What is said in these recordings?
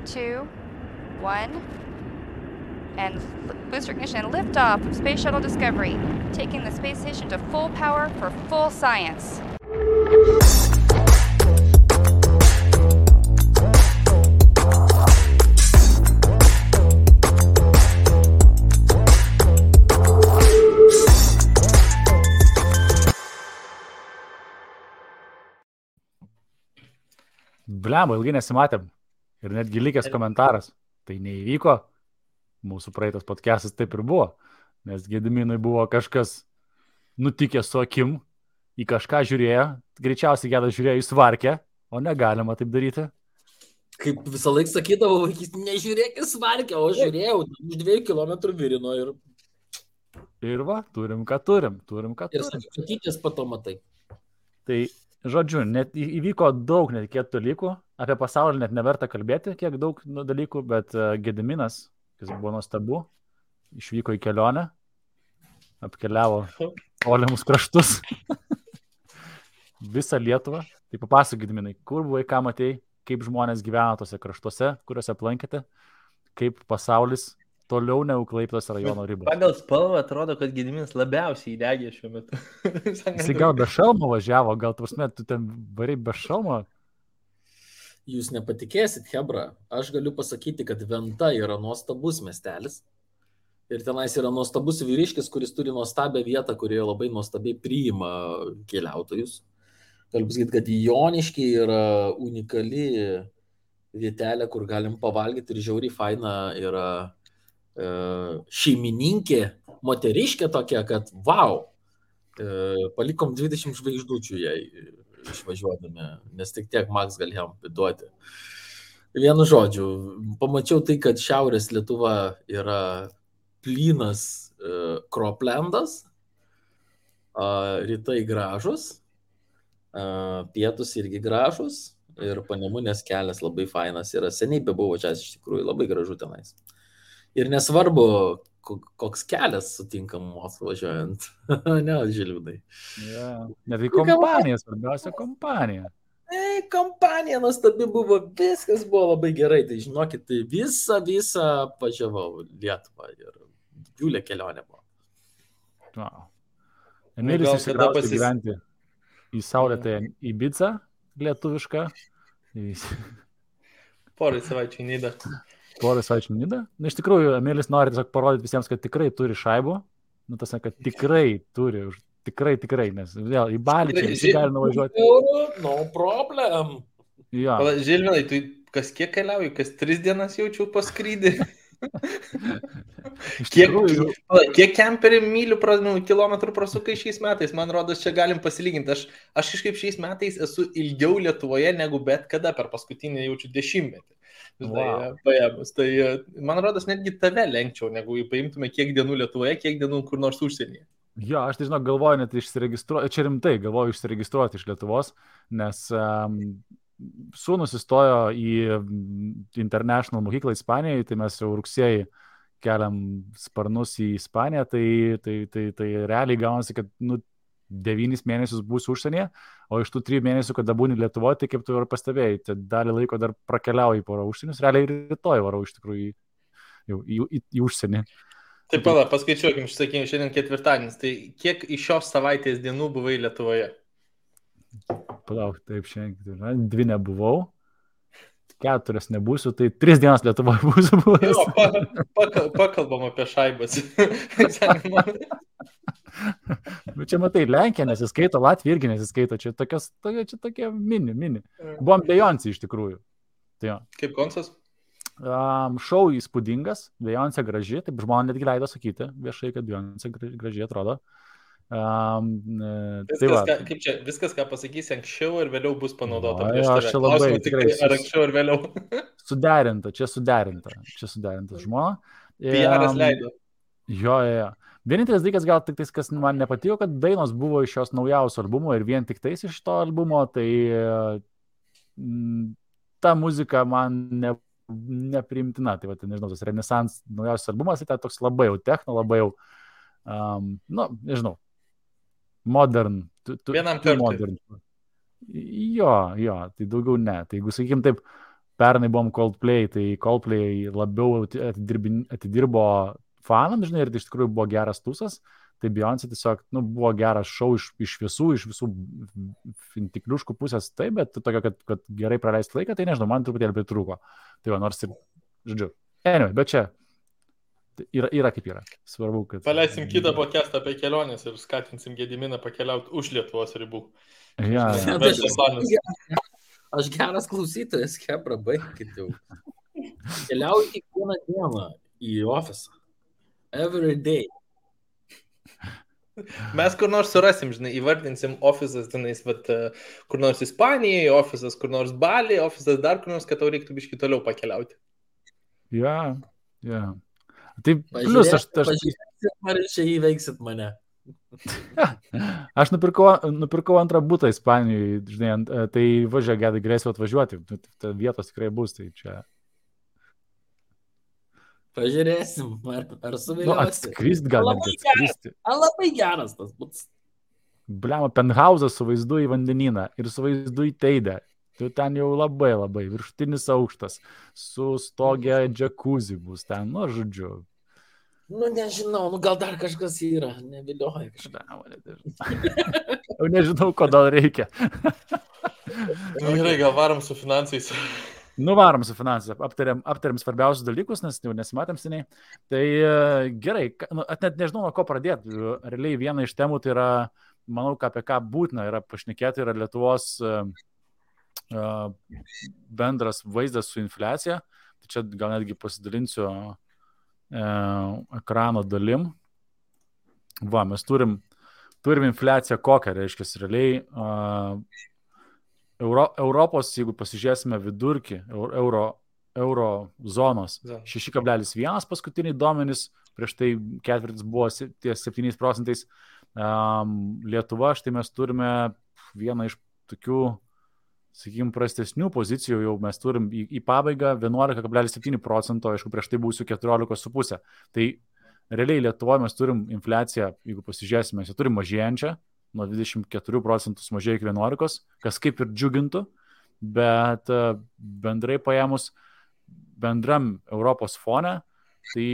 2, 1, and booster ignition and liftoff of Space Shuttle Discovery, taking the space station to full power for full science. Blemba, ilgai nesimatėm. Ir netgi likęs komentaras. Tai neįvyko. Mūsų praeitas podcastas taip ir buvo. Nes Gediminui buvo kažkas nutikęs su akim. Į kažką žiūrėjo. Greičiausiai Gedas žiūrėjo į svarkę. O negalima taip daryti. Kaip visą laiką sakydavau, nežiūrėk į svarkę, o žiūrėjau. Už 2 kilometrų virino ir... Ir va, turim ką turim. Ir sakytis pato matai. Tai... Žodžiu, net įvyko daug netikėtų dalykų, apie pasaulį net neverta kalbėti, kiek daug dalykų, bet Gediminas, kas buvo nuostabu, išvyko į kelionę, apkeliavo tolimus kraštus, visą Lietuvą. Tai papasakok, Gediminai, kur buvai, ką matei, kaip žmonės gyvena tose kraštuose, kuriuose aplankėte, kaip pasaulis toliau negu Klaipėdos rajono ribos. Pagal spalvą atrodo, kad Gediminas labiausiai įdegė šiuo metu. Jis gal be šalmo važiavo, gal tu ten variai be šalmo? Jūs nepatikėsit, Hebra, aš galiu pasakyti, kad Venta yra nuostabus miestelis. Ir tenais yra nuostabus vyriškis, kuris turi nuostabią vietą, kurioje labai nuostabiai priima keliautojus. Galiu pasakyti, kad Joniškiai yra unikali vietelė, kur galim pavalgyti ir žiauriai faina yra šeimininkė, moteriškė tokia, kad wow, palikom 20 žvaigždučių jai išvažiuodami, nes tik tiek Max galėjom duoti. Vienu žodžiu, pamačiau tai, kad šiaurės Lietuva yra plynas kroplendas, rytai gražus, pietus irgi gražus ir Panemunės kelias labai fainas yra. Seniai bebuvo čia, iš tikrųjų labai gražu tenais. Ir nesvarbu, koks kelias sutinkamos važiuojant. Ne, Žilvinai. Net į kompaniją, svarbiausia kompanija. Kompanija nuostabi buvo, viskas buvo labai gerai. Tai žinokit, tai visą važiavau Lietuvą ir didžiulė kelionė buvo. Wow. Emilis išsikraustė gyventi į saulėtą Ibicą lietuvišką. Porai savaičių į Nidą. Na, iš tikrųjų, Emilis nori tiesiog parodyti visiems, kad tikrai turi šaibų. Nu, tas, kad tikrai turi, tikrai, nes vėl į Balį čia visi gali nuvažiuoti. No problem. Ja. Žilvinai, tu kas kiek keliauji, kas 3 dienas jaučiu paskrydį? Kiek kemperių mylių kilometrų prasukai šiais metais? Man rodos, čia galim pasilyginti. Aš kažkaip šiais metais esu ilgiau Lietuvoje negu bet kada per paskutinį jaučiu 10-metį. Paėmus. Tai man rodos, netgi tave lenkčiau, negu paimtume kiek dienų Lietuvoje, kiek dienų kur nors užsienyje. Jo, aš tai žinau, galvoju net išsiregistruoti, čia rimtai galvoju išsiregistruoti iš Lietuvos, nes sūnus įstojo į International mokyklą Ispanijoje, tai mes jau rugsėjį keliam sparnus į Ispaniją, tai realiai gaunasi, kad 9 mėnesius būsiu užsienyje, o iš tų 3 mėnesių, kada būni Lietuvoje, tai kaip tu ir pastebėjai, tai dalį laiko dar prakeliauji porą užsienius, realiai rytoj varau iš tikrųjų į užsienį. Taip, pala, paskaičiuokim, sakykime, šiandien ketvirtadienis, tai kiek iš šios savaitės dienų buvai Lietuvoje? Palauk, taip, šiandien 2 nebuvau, 4 nebūsiu, tai 3 dienas Lietuvoje būsiu buvęs. Jo, pakalbam apie šaibas. Bet čia matai, Lenkija nesiskaito, Latvija irgi nesiskaito, čia tokie mini. Buvom Beyoncé iš tikrųjų. Tai jo. Kaip koncas? Šou įspūdingas, Beyoncé graži, taip žmonės netgi leido sakyti viešai, kad Beyoncé gražiai atrodo. Viskas, ką pasakysi anksčiau ir vėliau bus panaudota. Aš čia labai tikrai, ar anksčiau ir vėliau. Suderinta žmona. PR-as leido. Jo. Vienintelis dalykas gal tik tais, kas man nepatiko, kad dainos buvo iš šios naujausio albumo ir vien tik tais iš to albumo, tai ta muzika man nepriimtina. Tai va, nežinau, tas Renaissance naujausias albumas, tai toks labai jau techno, labai jau, nežinau, modern. Vienam kartui. Modern. Jo, tai daugiau ne. Tai jeigu, sakykim, taip, pernai buvom Coldplay, tai Coldplay labiau atidirbo fanams, žinai, ir tai iš tikrųjų buvo geras tūsas. Tai Beyoncé tiesiog buvo geras šou iš visų tikliuškų pusės, taip, bet tokio, kad gerai praleisti laiką, tai nežinau, man truputėlį pritrūko. Tai va, nors ir, žodžiu, anyway, bet čia yra kaip yra. Svarbu, kad... Paleisim kitą podcastą apie keliones ir skatinsim Gediminą pakeliauti už Lietuvos ribų. Ja. Aš geras klausytojas, Hebra, baigkit jau. Keliauju kiekvieną dieną į ofisą. Every day. Mes kur nors surasim, žinai, įvardinsim ofisas, tenais, kur nors Ispanijoje, ofisas, kur nors Bali, ofisas dar kur nors, kad tau reiktų biškį toliau pakeliauti. Ja. Tai plius aš... Pažiūrėkit, ar čia įveiksit mane. Aš nupirkau antrą butą Ispanijoje, žinai, tai važiuoju, gedai grėsiu atvažiuoti, vietos tikrai bus, tai čia... Pažiūrėsim, ar suviliosi. Atskristi gal netgi atskristi. Labai geras tas būtas. Bliama, penthausas su vaizdu į vandenyną ir su vaizdu į Teidę. Tai ten jau labai viršutinis aukštas, su stogė džakuzi bus ten, žodžiu. Nežinau, gal dar kažkas yra, nevilioja kažką. Jau nežinau, ko dar reikia. Gerai, gal varom su finansais. Nuvarom su finansais, aptariam svarbiausius dalykus, nes jau nesimatėm seniai. Tai gerai, net nežinau, nuo ko pradėti. Realiai viena iš temų tai yra, manau, apie ką būtina yra pašnekėti, yra Lietuvos bendras vaizdas su infliacija. Tai čia gal netgi pasidalinsiu ekrano dalim. Va, mes turim infliaciją kokią, reiškia, realiai Europos, jeigu pasižiūrėsime vidurkį, euro zonos 6,1 paskutiniai duomenys, prieš tai ketvirtis buvo ties 7%. Lietuva, štai mes turime vieną iš tokių, sakykime, prastesnių pozicijų, jau mes turim į pabaigą 11,7%, aišku, prieš tai būsiu 14,5%. Tai realiai Lietuvoje mes turim infliaciją, jeigu pasižiūrėsime, mes turim mažėjančią, nuo 24% sumažėjo iki 11%, kas kaip ir džiugintų, bet bendrai paėmus bendram Europos fone, tai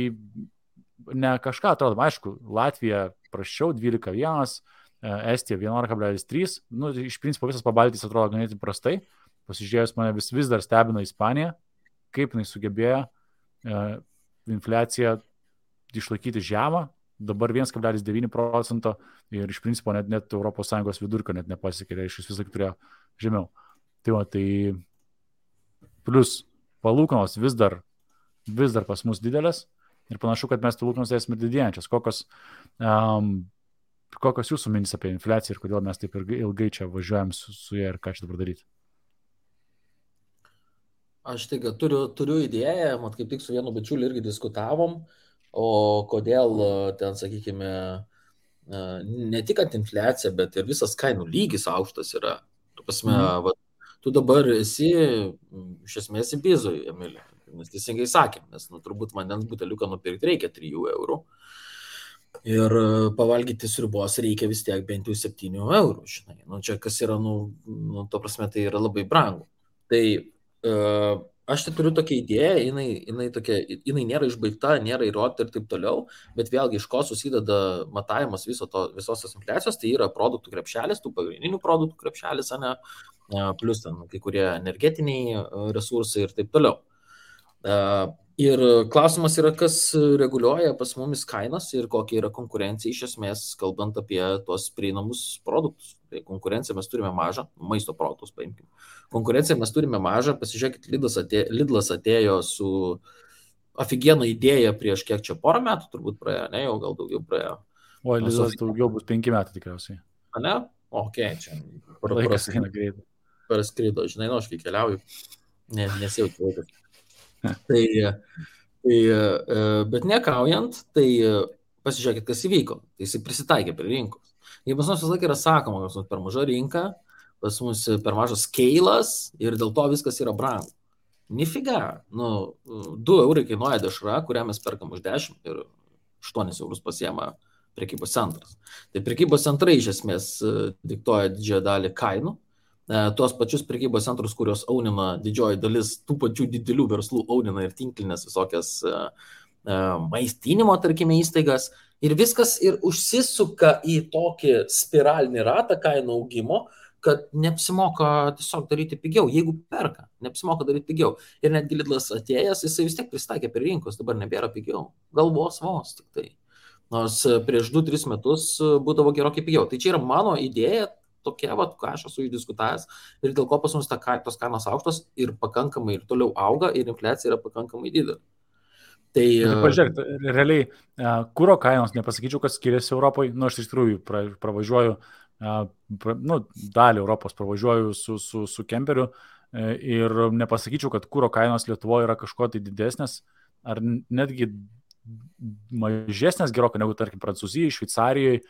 ne kažką atrodo, aišku, Latvija prasčiau 12,1%, Estija 11,3%, iš principo visas Pabaltijs atrodo ganėtinai prastai, pasižiūrėjus mane vis dar stebina Ispanija, kaip jinai sugebėjo infliaciją išlaikyti žemą, dabar 1,9% ir iš principo net ES vidurkio net nepasiekė, iš visą turėjo žemiau. Tai va, tai plus palūkanos vis dar pas mus didelės ir panašu, kad mes palūkanos esame didėjančias. Kokios jūsų mintys apie infliaciją ir kodėl mes taip ilgai čia važiuojam su ją ir ką čia dabar daryti? Aš turiu idėją, kaip tik su vienu bičiuliu irgi diskutavom, o kodėl ten, sakykime, ne tik ant infliacija, bet ir visas kainų lygis aukštas yra. Tu dabar esi, iš esmės, į bizoj, Emilė, nes teisingai sakėm, nes turbūt vandens buteliuką nupirkti reikia 3 eurų ir pavalgyti sriubos reikia vis tiek bent jau 7 eurų, žinai. Čia kas yra, to prasme, tai yra labai brangu. Tai aš tai turiu tokią idėją, jinai nėra išbaigta, nėra įrodyta ir taip toliau, bet vėlgi iš ko susideda matavimas visos tos infliacijos, tai yra produktų krepšelis, tų pagrindinių produktų krepšelis, plus ten kai kurie energetiniai resursai ir taip toliau. Ir klausimas yra, kas reguliuoja pas mumis kainas ir kokia yra konkurencija iš esmės, kalbant apie tuos prieinamus produktus. Tai konkurenciją mes turime mažą, maisto produktus paimkime. Konkurenciją mes turime mažą, pasižiūrėkit, Lidlas atėjo su aфиgiena idėja prieš kiek čia porą metų, turbūt praėjo, ne, jau gal daugiau praėjo. O, Lidlas daugiau bus 5 metų tikriausiai. A ne? Ok, čia. Laikas eina greitai. Praskrido, žinai, aš kai keliauju, nesijaučiu laikas. Bet nekaujant, tai pasižiūrėkit, kas įvyko. Tai jis prisitaikė prie rinkos. Jei pas mus visą laiką yra sakoma, kad pas mus per maža rinka, pas mus per mažas skeilas ir dėl to viskas yra brangu. Nifiga. 2 eurai kainuoja dešra, kurią mes perkam už 10 ir 8 eurus pasiema prekybos centras. Tai prekybos centrai iš esmės diktuoja didžiąją dalį kainų. tuos pačius prekybos centrus, kurios aunina didžioji dalis tų pačių didelių verslų, aunina ir tinklinės visokias maistinimo, tarkime, įstaigas. Ir viskas ir užsisuka į tokį spiralinį ratą kainų augimo, kad neapsimoka tiesiog daryti pigiau, jeigu perka, neapsimoka daryti pigiau. Ir netgi Lidlas atėjęs, jisai vis tiek pristaikė prie rinkos, dabar nebėra pigiau. Gal vos tik tai. Nors prieš 2-3 metus būdavo gerokai pigiau. Tai čia yra mano idėja, tokia, ką aš esu išdiskutavęs ir dėl ko pas mus tos kainos aukštos ir pakankamai ir toliau auga ir infliacija yra pakankamai didelė. Tai pažiūrėk, realiai, kuro kainos, nepasakyčiau, kad skiriasi Europoje, aš iš tikrųjų pravažiuoju, dalį Europos pravažiuoju su kemperiu ir nepasakyčiau, kad kuro kainos Lietuvoje yra kažko tai didesnės, ar netgi mažesnės gerokai negu, tarkim, Prancūzijoje, Šveicarijoje,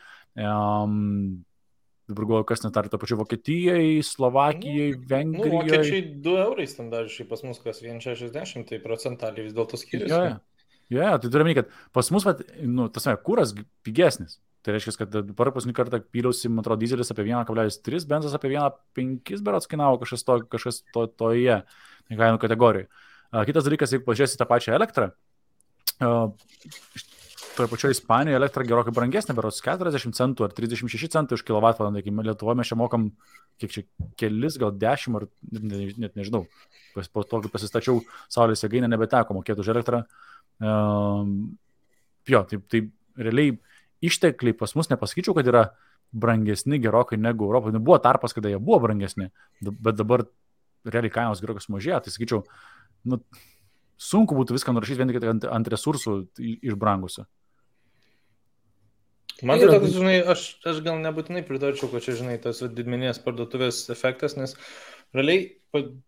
dabar galvoju, kas net ar to pačiu Vokietijai, Slovakijai, Vengrijai. Vokiečiai 2 eurai standartiškai, pas mus kas 1,60, tai procentaliai vis dėlto skiriasi. Tai turime, kad pas mus, kuras pigesnis. Tai reiškia, kad dabar paskutinį kartą pyliausi, man atrodo, dizelis apie 1,3, benzas apie 1,5 berods kainavo kažkas toje kainų kategorijoje. Kitas dalykas, jeigu pažiūrėsi tą pačią elektrą, toje pačioje Ispanijoje elektra gerokai brangesnė, berods 40 centų ar 36 centų už kilovatvalandę. Lietuvoje mes čia mokam, kiek čia, kelis, gal 10 ar net nežinau. Po to, kai pasistačiau saulės jėgainę, nebeteko mokėti už elektrą. Tai realiai ištekliai pas mus nepasakyčiau, kad yra brangesni gerokai negu Europoje. Buvo tarpas, kada jie buvo brangesni, bet dabar realiai kainos gerokai sumažėjo. Tai sakyčiau, sunku būtų viską nurašyti vien tik ant resursų išbrangusių. Man tai toks, aš gal nebūtinai pritarčiau, kad čia, tas didmeninės parduotuvės efektas, nes realiai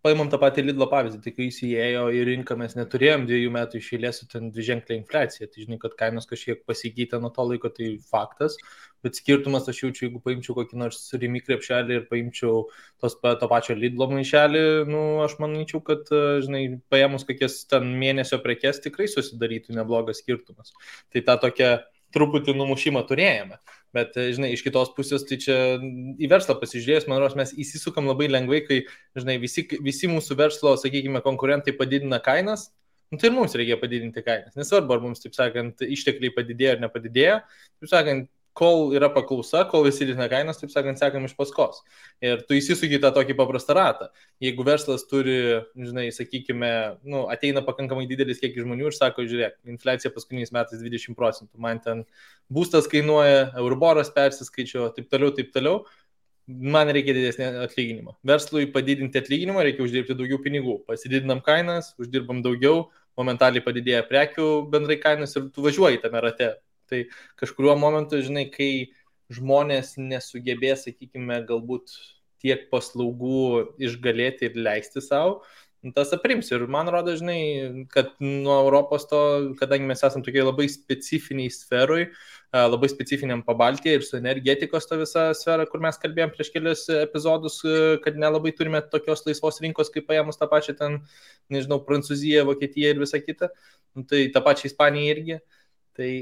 paimam tą patį Lidlo pavyzdį, tai kai jis įėjo į rinką, mes neturėjom 2 metų iš eilės su ten dviženklę infliaciją, tai kad kainos kažkiek pasikeitė nuo to laiko, tai faktas, bet skirtumas aš jaučiu, jeigu paimčiau kokį nors Rimi krepšelį ir paimčiau to pačio Lidlo maišelį, aš manyčiau, kad, paėmus kokias ten mėnesio prekes tikrai susidarytų neblogas skirtumas. Tai ta tokia truputį numušimą turėjome, bet, iš kitos pusės, tai čia į verslą pasižiūrėjus, man rodos, mes įsisukam labai lengvai, kai, visi mūsų verslo, sakykime, konkurentai padidina kainas, tai ir mums reikia padidinti kainas. Nesvarbu, ar mums, taip sakant, ištekliai padidėjo ar nepadidėjo, taip sakant, kol yra paklausa, kol visi didina kainas, taip sakant, sekam iš paskos. Ir tu įsisuki tą tokį paprastą ratą. Jeigu verslas turi, sakykime, ateina pakankamai didelis kiekis žmonių ir sako, žiūrėk, infliacija paskutiniais metais 20%, man ten būstas kainuoja, Euriboras persiskaičiuoja, taip toliau, man reikia didesnį atlyginimą. Verslui padidinti atlyginimą reikia uždirbti daugiau pinigų. Pasididinam kainas, uždirbam daugiau, momentaliai padidėja prekių bendrai kainos ir tu važiuoji tame rate. Tai kažkuriuo momentu, kai žmonės nesugebės, sakykime, galbūt tiek paslaugų išgalėti ir leisti savo, tas aprims. Ir man rodo, kad nuo Europos to, kadangi mes esame tokiai labai specifiniai sferui, labai specifiniam Pabaltyje ir su energetikos to visą sferą, kur mes kalbėjom prieš kelius epizodus, kad nelabai turime tokios laisvos rinkos, kaip paėmus tą pačią ten, Prancūziją, Vokietiją ir visą kitą, tai tą pačią Ispaniją irgi. Tai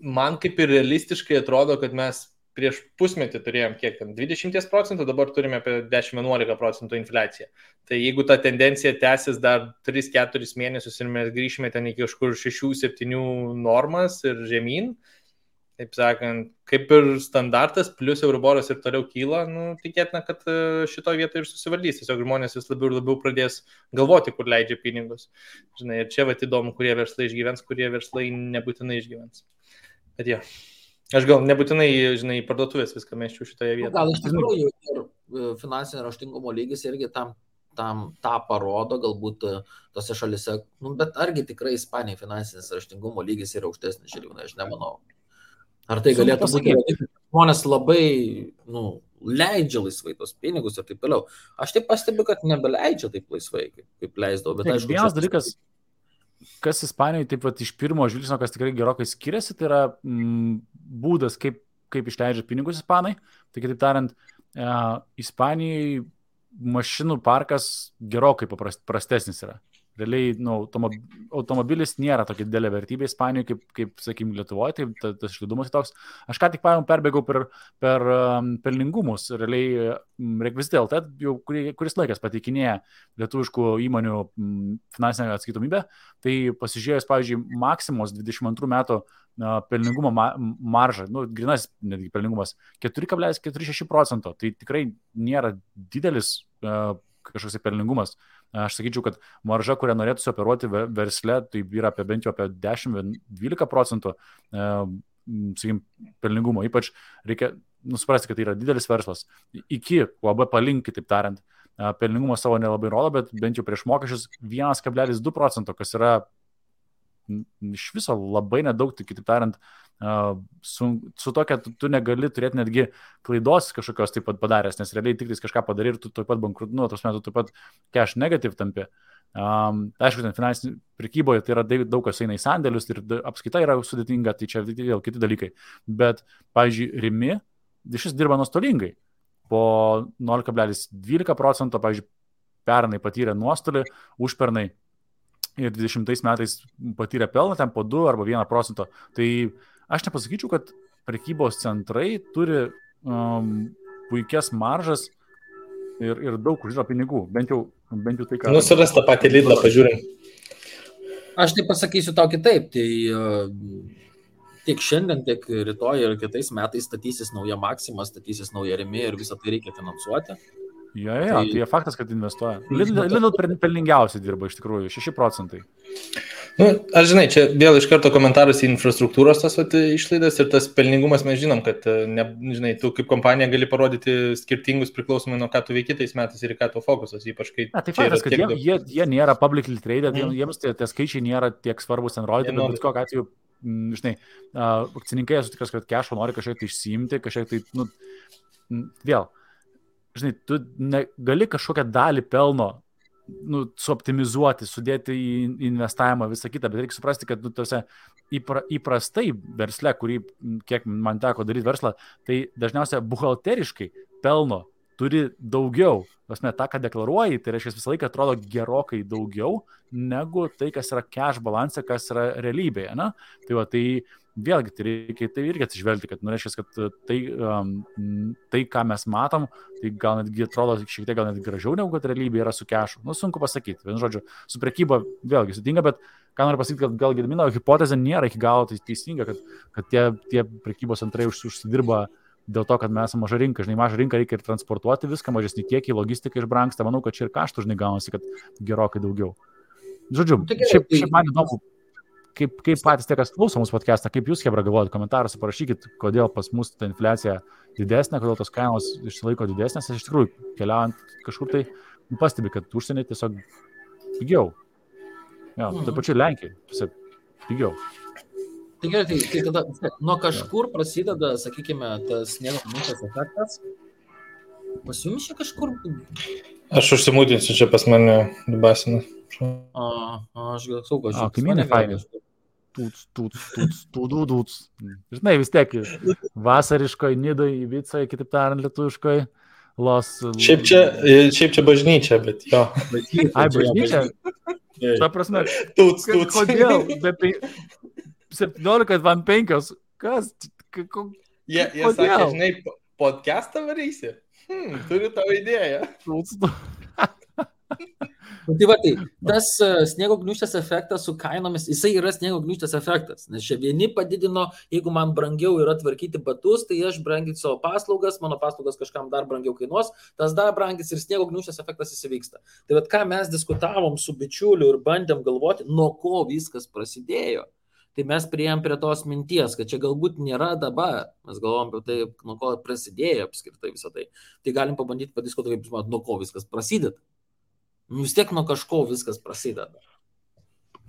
man kaip ir realistiškai atrodo, kad mes prieš pusmetį turėjom kiek ten 20%, dabar turime apie 10-11% infliaciją. Tai jeigu ta tendencija tęsis dar 3-4 mėnesius ir mes grįšime ten iki kažkur 6-7 normas ir žemyn, taip sakant, kaip ir standartas, plus Euriboras ir toliau kyla, tikėtina, kad šito vietoje ir susivaldys. Tiesiog žmonės vis labiau ir labiau pradės galvoti, kur leidžia pinigus. Ir čia įdomu, kurie verslai išgyvens, kurie verslai nebūtinai išgyvens. Bet jo, aš gal nebūtinai, parduotuvės viską meščiau šitoje vietoje. Gal iš tikrųjų ir finansinio raštingumo lygis irgi tą parodo, galbūt tose šalise, bet argi tikrai Ispanijai finansinis raštingumo lygis yra aukštesnis, aš nemanau. Ar tai galėtų būti, žmonės labai, leidžia laisvai tos pinigus ir taip toliau. Aš taip pastebiu, kad nebeleidžia taip laisvai, kaip leisdavo. Bet aišku, vienas dalykas, kas Ispanijoje taip pat iš pirmo žvilgsnio, kas tikrai gerokai skiriasi, tai yra būdas, kaip išleidžia pinigus ispanai. Tai kitaip tariant, Ispanijai mašinų parkas gerokai prastesnis yra. realiai automobilis nėra tokia didelė vertybė Ispanijoje, kaip sakykime, Lietuvoje, tai tas išlaidumas toks. Aš ką tik perbėgau per pelningumus, realiai Rekvizitai LT jau kuris laikas pateikinėja lietuviškų įmonių finansinę atskaitomybę, tai pasižiūrėjus, pavyzdžiui, Maksimos 22 metų pelningumo maržą, grynas netgi pelningumas 4,46%, tai tikrai nėra didelis kažkoks pelningumas. Aš sakyčiau, kad marža, kurią norėtųsi operuoti versle, tai yra bent jau apie 10-12%, sakykim, pelningumo. Ypač reikia suprasti, kad tai yra didelis verslas. Iki UAB palink, kitaip tariant, pelningumo savo nelabai rodo, bet bent jau prieš mokesčius 1,2%, kas yra iš viso labai nedaug, tai kitaip tariant, su tokia tu negali turėti netgi klaidos kažkokios taip pat padaręs, nes realiai tik kažką padarai ir tu taip pat bankrutuoji, tos metų taip pat cash negative tampi. Aišku, ten finansinė prekyboje tai yra daug kas eina į sandėlius ir apskaita yra sudėtinga, tai čia vėl kiti dalykai. Bet, pavyzdžiui, Rimi šis dirba nuostolingai. Po 0,12%, pavyzdžiui, pernai patyrė nuostolį, užpernai ir 20 metais patyrė pelną, ten po 2 arba 1%. Tai aš nepasakyčiau, kad prekybos centrai turi puikias maržas ir daug uždirba pinigų. Bent jau tai, ką... Nusiras tą patį Lidlą, pažiūrim. Aš tai pasakysiu tau kitaip. Tai tiek šiandien, tiek rytoj ir kitais metais statysis nauja Maxima, statysis nauja Rimi ir visą tai reikia finansuoti. Tai faktas, kad investuoja. Lidl pelningiausiai dirba iš tikrųjų, 6%. Aš žinai, čia vėl iš karto komentaras į infrastruktūros tas išlaidas ir tas pelningumas mes žinom, kad žinai, tu kaip kompanija gali parodyti skirtingus priklausomai nuo ką tu veiki tais metais ir ką tu fokusas, ypač kai... Tai faktas, kad jie nėra publicly traded, jiems tie skaičiai nėra tiek svarbus ten rodyti, bet kokiu atveju, žinai, akcininkai esu tikras, kad cash'o nori kažkiek tai išsiimti, kažkiek tai, vėl, žinai, tu gali kažkokią dalį pelno suoptimizuoti, sudėti į investavimą, visą kitą, bet reikia suprasti, kad įprastai versle, kurį, kiek man teko daryti verslą, tai dažniausiai buhalteriškai pelno turi daugiau. Pasme, tą, ką deklaruoji, tai reiškia visą laiką atrodo gerokai daugiau negu tai, kas yra cash balance, kas yra realybėje. Na? Tai vėlgi, tai reikia tai irgi atsižvelgti, kad reiškia, kad tai, ką mes matom, tai gal netgi atrodo šiek tiek gal net gražiau negu kad realybė yra su cashu. Sunku pasakyti. Vienu žodžiu, su prekyba vėlgi sudėtinga, bet ką noriu pasakyti, kad gal Gedimino hipotezė nėra iki galo teisinga, kad tie prekybos centrai užsidirba dėl to, kad mes esame maža rinka. Žinai, maža rinka reikia ir transportuoti viską, mažesnį kiekį, logistika išbrangsta. Manau, kad čia ir kaštų, žinai, gaunasi, kad gerokai daugiau. Žodžiu, šiaip man įdomu, kaip patys tie, kas klauso mūsų podcastą, kaip jūs, Hebra, galvojate, komentaruose parašykit, kodėl pas mus ta infliacija didesnė, kodėl tos kainos išsilaiko didesnės. Aš iš tikrųjų, keliaujant kažkur tai, pastebi, kad užsienį tiesiog pigiau. Tai pačiu Lenkijai, tiesiog pigiau. Tai gerai, tai tada nuo kažkur prasideda, sakykime, tas sniego gniūžtės efektas. Pas jums čia kažkur... Aš užsimūdinsiu čia pas mane dubasina. Aš gal saugo, aš kaimynai fainai. Tūts. Žinai, vis tiek vasariškoj, Nidoj, Ibicoje, kitaip tariant, lietuviškoj, Šiaip čia bažnyčia, bet jo. Ai, bažnyčia? Ta prasme, Tūts. Kodėl? 17:05. Kas? Jie sakė, žinai, podcastą varysi. Turiu tavo idėją. Tai va, tas sniego gniūžtės efektas su kainomis, jisai yra sniego gniūžtės efektas, nes čia vieni padidino, jeigu man brangiau yra tvarkyti batus, tai aš branginsiu savo paslaugas, mano paslaugas kažkam dar brangiau kainuos, tas dar brangis ir sniego gniūžtės efektas įsivyksta. Tai va, ką mes diskutavom su bičiuliu ir bandėm galvoti, nuo ko viskas prasidėjo. Tai mes priėjom prie tos minties, kad čia galbūt nėra dabar. Mes galvom apie tai, nuo ko prasidėjo apskritai visą tai. Tai galim pabandyti padiskutuoti, kaip jūs manot, nuo ko viskas prasideda. Vis tiek nuo kažko viskas prasideda.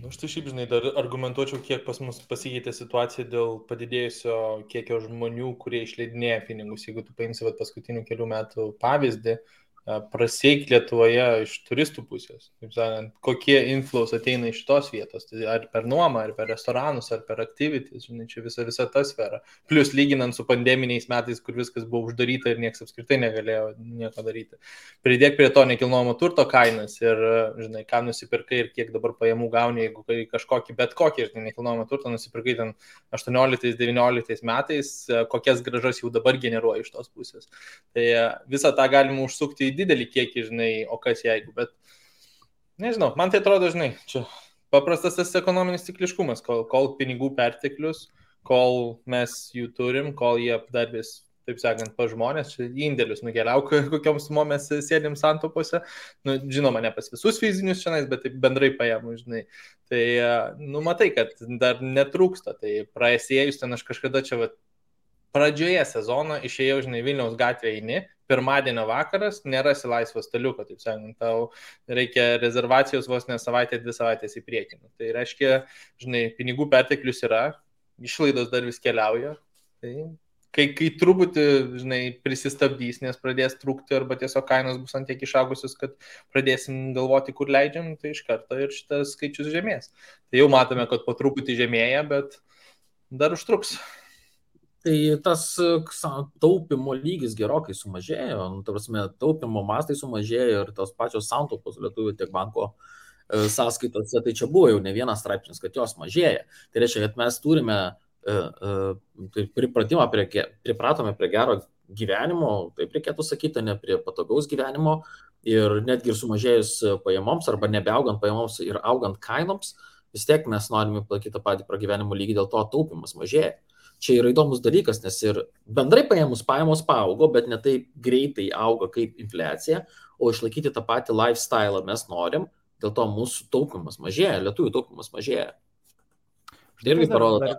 Aš tai šiaip, žinai, dar argumentuočiau, kiek pas mus pasikeitė situacija dėl padidėjusio kiekio žmonių, kurie išleidinėja pinigus. Jeigu tu paimsi paskutinių kelių metų pavyzdį, prasieik Lietuvoje iš turistų pusės. Taip sakant, kokie inflows ateina iš tos vietos, tai ar per nuomą, ar per restoranus, ar per activities, žinai, čia visa ta sfera. Plius lyginant su pandeminiais metais, kur viskas buvo uždaryta ir niekas apskritai negalėjo nieko daryti. Pridėk prie to nekilnojamo turto kainas ir, žinai, ką nusipirkai ir kiek dabar pajamų gauni, jeigu kažkokį, bet kokį, žinai, nekilnojamo turto nusipirkai ten 18-19 metais, kokias grąžas jau dabar generuoja iš tos pusės. Tai visą tą galima užsukti į didelį kiekį, žinai, o kas jeigu, bet nežinau, man tai atrodo, žinai, čia paprastas tas ekonominis cikliškumas, kol pinigų perteklius, kol mes jų turim, kol jie dar vis, taip sakant, pa žmonės, čia indėlius nukeliauk, kokiom sumom mes sėdim santopose, nu, žinoma, ne pas visus fizinius šiandien, bet taip bendrai paėmų, žinai, tai, nu, matai, kad dar netrūksta, tai praėjus ten aš kažkada čia, pradžioje sezono išėjau, žinai, Vilniaus gatvėje eini, pirmadienio vakaras, nerasi laisvo staliuko, taip sakant, tau reikia rezervacijos vos ne savaitę, 2 savaitės į priekį. Tai reiškia, žinai, pinigų perteklius yra, išlaidos dar vis keliauja, tai kai truputį, žinai, prisistabdys, nes pradės trūkti arba tiesiog kainos bus ant tiek išaugusios, kad pradėsim galvoti, kur leidžiam, tai iš karto ir šitas skaičius žemės. Tai jau matome, kad po truputį žemėja, bet dar užtruks. Tai tas taupimo lygis gerokai sumažėjo, ta prasme, taupimo mastai sumažėjo ir tos pačios santaupos lietuvių tiek banko sąskaitose, tai čia buvo jau ne vienas straipsnis, kad jos mažėja. Tai reiškia, kad mes turime pripratome prie gero gyvenimo, taip reikėtų sakyti, ne prie patogaus gyvenimo ir netgi ir sumažėjus pajamoms arba nebeaugant pajamoms ir augant kainoms, vis tiek mes norime palaikyti tą patį pragyvenimo lygį, dėl to taupimas mažėja. Čia yra įdomus dalykas, nes ir bendrai pajamos paaugo, bet ne taip greitai auga kaip infliacija, o išlaikyti tą patį lifestyle mes norim, dėl to mūsų taupimas mažėja, lietuvių taupimas mažėja. Tai irgi parodo.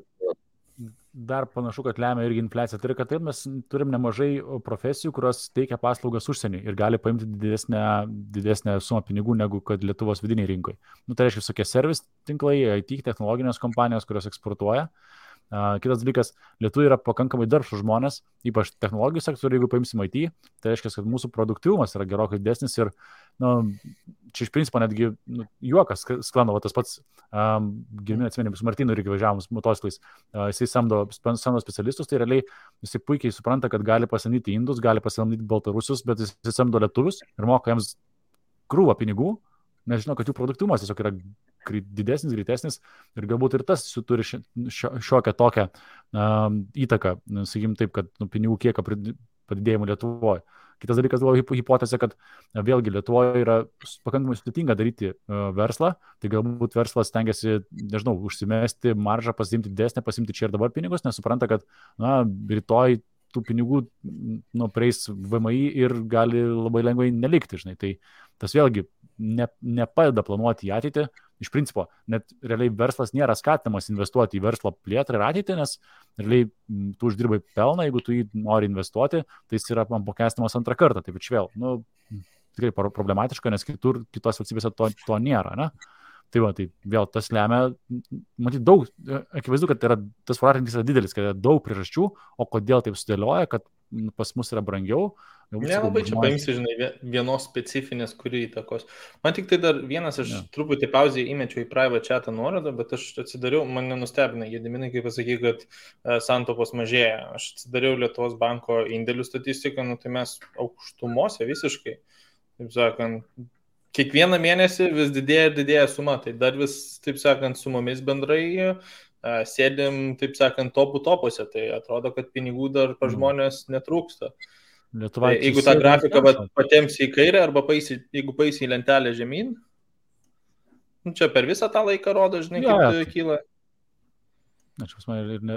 Dar panašu, kad lemia irgi infliacija. Tai yra, kad taip mes turim nemažai profesijų, kurios teikia paslaugas užsieniui ir gali paimti didesnę sumą pinigų negu kad Lietuvos vidiniai rinkoje. Nu, tai reiškia visokie servis tinklai, IT technologinės kompanijos, kurios eksportuoja. Kitas dalykas, lietuviai yra pakankamai darbštūs žmonės, ypač technologijų sektoriuje, jeigu paimsim IT, tai reiškia, kad mūsų produktyvumas yra gerokai didesnis ir, nu, čia iš principo netgi juokas sklando, tas pats Girminė atsimeni, su Martinu irgi važiavom motociklais, jisai samdo specialistus, tai realiai jisai puikiai supranta, kad gali pasamdyti indus, gali pasamdyti baltarusius, bet jisai samdo lietuvius ir moka jiems krūvą pinigų, nes žinau, kad jų produktyvumas tiesiog yra didesnis, greitesnis ir galbūt ir tas turi šiokią tokią įtaką, sakykim taip, kad pinigų kiekio padidėjimų Lietuvoje. Kitas dalykas buvo hipotezė, kad vėlgi Lietuvoje yra pakankamai sudėtinga daryti verslą, tai galbūt verslas stengiasi, nežinau, užsimesti maržą, pasiimti didesnę, pasiimti čia ir dabar pinigus, nes supranta, kad rytoj tų pinigų prieis VMI ir gali labai lengvai nelikti, žinai. Tai tas vėlgi nepadeda planuoti į ateitį. Iš principo, net realiai verslas nėra skatinamas investuoti į verslo plėtrą ir ateitį, nes realiai tu uždirbai pelną, jeigu tu jį nori investuoti, tai jis yra apmokestinamas antrą kartą. Taip ir vėl, tikrai problematiška, nes kitos valstybėse to nėra, ne? Tai va, tai vėl tas lemia, matyt, daug, akivaizdu, kad tas voratinklis yra didelis, kad yra daug priežasčių, o kodėl taip sudėlioja, kad pas mus yra brangiau. Nelabai čia paimsi, žinai, vienos specifinės, kuri įtakos. Man tik tai dar vienas, aš truputį pauzį įmečiau į private chatą nuorodą, bet aš atsidariau, mane nustebina, Gediminai, kaip pasakai, kad santaupos mažėja. Aš atsidariau Lietuvos banko indėlių statistiką, tai mes aukštumose visiškai, taip sakant, kiekvieną mėnesį vis didėja ir didėja suma, tai dar vis, taip sakant, sumomis bendrai sėdim, taip sakant, topuose, tai atrodo, kad pinigų dar pa žmonės netrūksta. Tai jeigu tą grafiką patemsi į kairę arba jeigu paisi į lentelę žemyn, čia per visą tą laiką rodo, žinai, kaip kyla. Na, čia pas mane ir ne...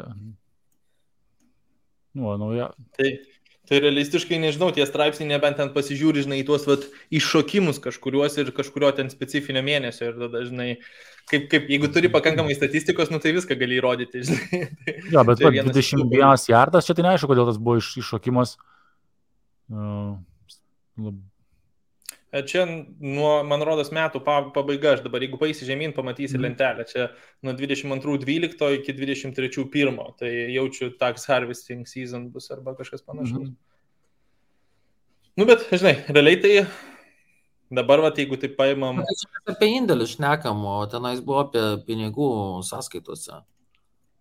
Nauja. Tai realistiškai, nežinau, tie straipsniai nebent ten pasižiūri, žinai, į tuos iššokimus kažkuriuos ir kažkurio ten specifinio mėnesio ir tada, žinai, kaip jeigu turi pakankamai statistikos, tai viską gali įrodyti, žinai. Jo, bet 21 jardas, čia tai neaišku, kodėl tas buvo iššokimas. Čia nuo, man rodos, metų pabaiga, aš dabar, jeigu paisi žemyn, pamatysi lentelę, čia nuo 22.12 iki 23.1, tai jaučiu tax harvesting season bus arba kažkas panašaus. Nu, bet, žinai, realiai tai dabar, va, jeigu tai paimam... Apie indėlius šnekam, o tenais buvo apie pinigų sąskaitose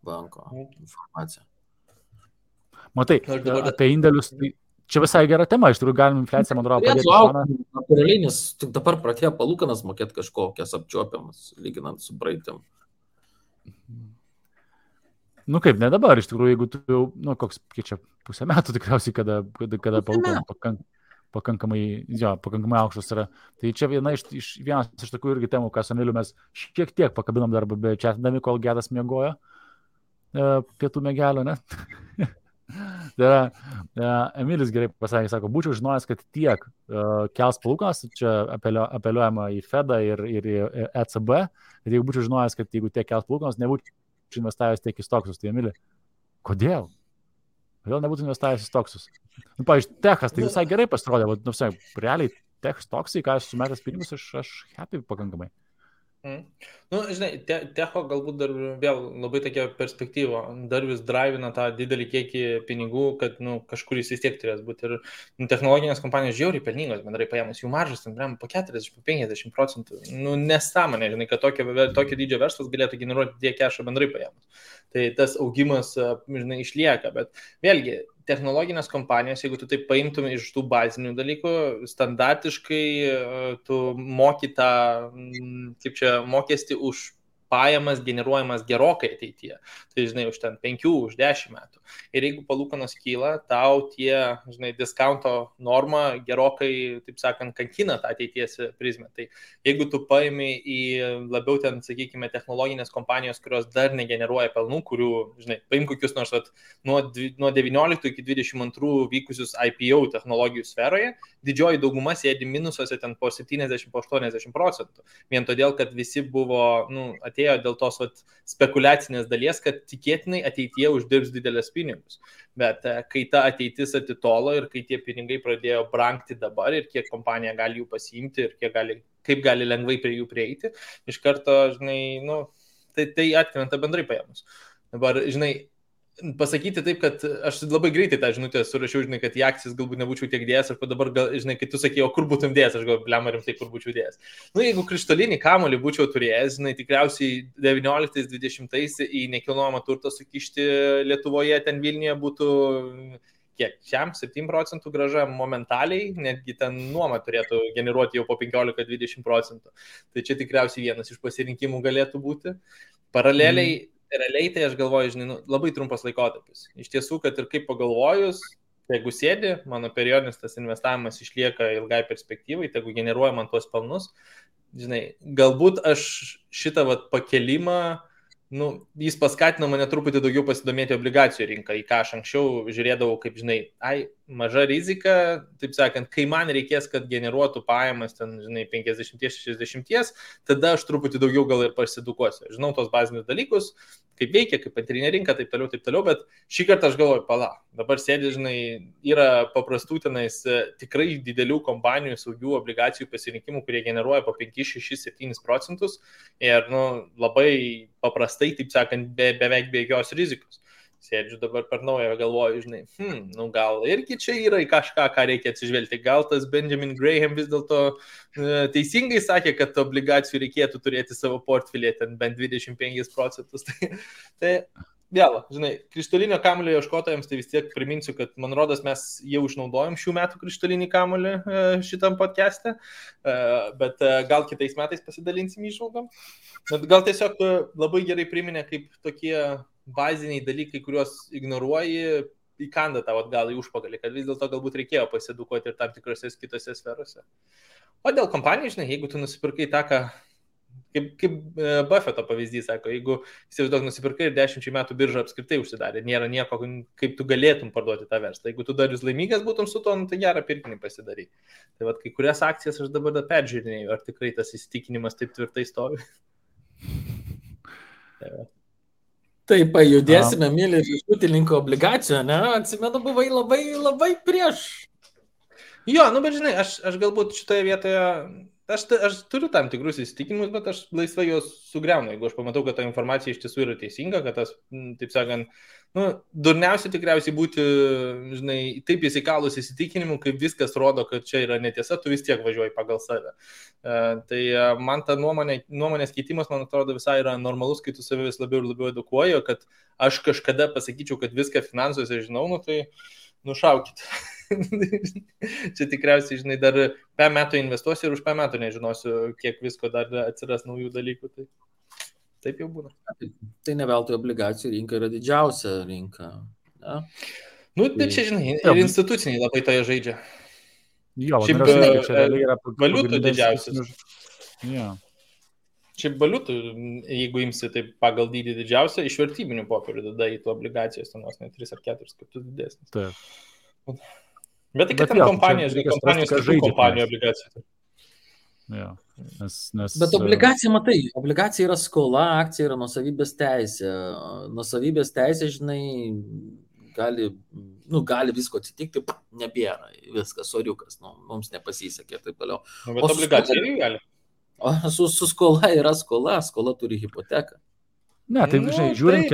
banko informaciją. Matai, apie indėlius, tai čia visai gera tema, iš tikrųjų galim infliaciją, man atrodo, padėti šoną. Natūraliai, nes tik dabar pradėjo palūkanas mokėti kažkokias apčiuopiamas, lyginant su praeitim. Nu kaip, ne dabar, iš tikrųjų, jeigu tu jau, nu koks, kiek čia pusę metų tikriausiai, kada palūkanas pakankamai aukštas yra. Tai čia vienas iš tokių irgi temų, ką su Emiliu mes šiek tiek pakabinam darbą, bet čia atdami, kol Gedas miegojo pietų mėgelio, ne? Tai yra, Emilis gerai pasakė, sako, būčiau žinojęs, kad tiek kels palūkanas, čia apeliuojama į Fedą ir į ECB, kad jeigu būčiau žinojęs, kad jeigu tiek kels palūkanas, nebūčiau investavęs tiek į stoksus. Tai Emili, kodėl? Kodėl nebūtų investavęs į stoksus? Nu, pavyzdžiui, techas, tai visai gerai pasirodė, bet, nu, realiai, stoksai, ką aš sumetęs pinigus, aš happy pakankamai. Nu, žinai, techo galbūt dar vėl labai tokia perspektyva, dar vis drivina tą didelį kiekį pinigų, kad, nu, kažkur jis vis tiek turės būti. Ir nu, technologinės kompanijos žiauriai pelningos, bendrai paėmus, jų maržas, ten, po 40-50%. Nu, nesąmonė, žinai, kad tokio dydžio verslas galėtų generuoti tiek kešą bendrai paėmus. Tai tas augimas, žinai, išlieka, bet vėlgi, technologinės kompanijos, jeigu tu taip paimtum iš tų bazinių dalykų, standartiškai tu moki tą, kaip čia, mokestį už pajamas generuojamas gerokai ateityje. Tai, žinai, už ten 5, už 10 metų. Ir jeigu palūkanos kyla, tau tie, žinai, discounto norma gerokai, taip sakant, kankina tą ateities prizmę. Tai jeigu tu paimi į labiau ten, sakykime, technologinės kompanijos, kurios dar negeneruoja pelnų, kurių, žinai, paim kokius nors nuo 19 iki 22 vykusius IPO technologijų sferoje, didžioji dauguma sėdi minusuose ten po 70-80%. Vien todėl, kad visi buvo, nu, atėjo dėl tos spekuliacinės dalies, kad tikėtinai ateityje uždirbs didelės pinigus. Bet kai ta ateitis atitolo ir kai tie pinigai pradėjo brangti dabar ir kiek kompanija gali jų pasiimti ir kaip gali lengvai prie jų prieiti, iš karto, žinai, nu, tai atkrenta bendrai paėmus. Dabar, žinai, pasakyti taip, kad aš labai greitai tą žinutę surašiau, žinai, kad į akcijas galbūt nebūčiau tiek dėjęs, ir dabar, žinai, kai tu sakei, o kur būtum dėjęs, aš galvoju, blema rimtai, kur būčiau dėjęs. Nu, jeigu krištolinį kamuolį būčiau turėjęs, žinai, tikriausiai 19-20 į nekilnojamą turtą sukišti Lietuvoje, ten Vilniuje būtų kiek, 7% grąža momentaliai, netgi ten nuoma turėtų generuoti jau po 15-20%. Tai čia tikriausiai vienas iš pasirinkimų galėtų būti. Paraleliai, realiai tai aš galvoju, žinai, nu, labai trumpas laikotarpis. Iš tiesų, kad ir kaip pagalvojus, jeigu sėdi, mano periodinis tas investavimas išlieka ilgai perspektyvai, jeigu generuoja man tuos pelnus, žinai, galbūt aš šitą pakelimą, nu, jis paskatino mane truputį daugiau pasidomėti obligacijų rinką, į ką aš anksčiau žiūrėdavau, kaip, žinai, maža rizika, taip sakant, kai man reikės, kad generuotų pajamas ten, žinai, 50-60, tada aš truputį daugiau gal ir pasidukuosiu. Žinau tos bazinius dalykus, kaip veikia, kaip antrinė rinka, taip toliau, bet šį kartą aš galvoju, dabar sėdi, žinai, yra paprastų tenais tikrai didelių kompanijų saugių obligacijų pasirinkimų, kurie generuoja po 5-6-7% ir, nu, labai paprastai, taip sakant, beveik be jokios rizikos. Sėdžiu dabar per naują, galvoju, žinai, nu gal irgi čia yra į kažką, ką reikia atsižvelgti. Gal tas Benjamin Graham vis dėlto teisingai sakė, kad obligacijų reikėtų turėti savo portfelį, ten bent 25%. Tai vėl, žinai, krištolinio kamuolio ieškotojams, tai vis tiek priminsiu, kad man rodos mes jau išnaudojom šių metų krištolinį kamuolį šitam podcast'e, bet gal kitais metais pasidalinsim įžvalgom. Gal tiesiog labai gerai priminė, kaip tokie baziniai dalykai, kuriuos ignoruoji, įkanda tavo atgal į užpakalį, kad vis dėlto galbūt reikėjo pasiedukuoti ir tam tikrose kitose sferose. O dėl kompanijų, žinai, jeigu tu nusipirkai tą, kaip Buffeto pavyzdys, sako, jeigu įsivaizduok nusipirkai ir 10 metų birža apskritai užsidarė, nėra nieko, kaip tu galėtum parduoti tą verslą. Jeigu tu dar vis laimingas būtum su to, nu, tai gerą pirkinį pasidarai. Tai kai kurias akcijas aš dabar peržiūrinėjau, ar tikrai tas įsitikinimas taip tvirtai stovi. Taip, judėsime, mylė, iš ūkininkų obligacijų, ne? Atsimenu, buvai labai, labai prieš. Jo, nu, bet žinai, aš galbūt šitoje vietoje Aš turiu tam tikrus įsitikinimus, bet aš laisvai juos sugriaunu, jeigu aš pamatau, kad ta informacija iš tiesų yra teisinga, kad tas, taip sakant, durniausia tikriausiai būti, žinai, taip įsikalus įsitikinimu, kaip viskas rodo, kad čia yra netiesa, tu vis tiek važiuoji pagal save. Tai man ta nuomonės keitimas, man atrodo, visai yra normalus, kai tu save vis labiau ir labiau edukuoji, kad aš kažkada pasakyčiau, kad viską finansuose žinau, tai nušaukit. Čia tikriausiai, žinai, dar 5 metų investuosiu ir už 5 metų nežinosiu, kiek visko dar atsiras naujų dalykų. Tai taip jau būna. Tai ne veltui obligacijų rinka yra didžiausia rinka. Ja? Tai čia, žinai, ir instituciniai labai toje žaidžia. Jo, šiaip valiutų didžiausias. Ja. Šiaip valiutų, jeigu imsi tai pagal dydį didžiausia, iš vertybinių popierių tada į tų obligacijos, ten vos ne 3 ar 4 kartus didesnis. Taip. Bet tai, kad ten kompanijos kitų kompanijų obligacijų. Ja. Bet obligacija, matai, obligacija yra skola, akcija yra nuosavybės teisė. Nuosavybės teisė, žinai, gali visko atsitikti, nebėra, viskas, soriukas, mums nepasisekė ir taip toliau. Bet obligacija irgi gali. O su skola yra skola turi hipoteką. Ne, tai žiūrint,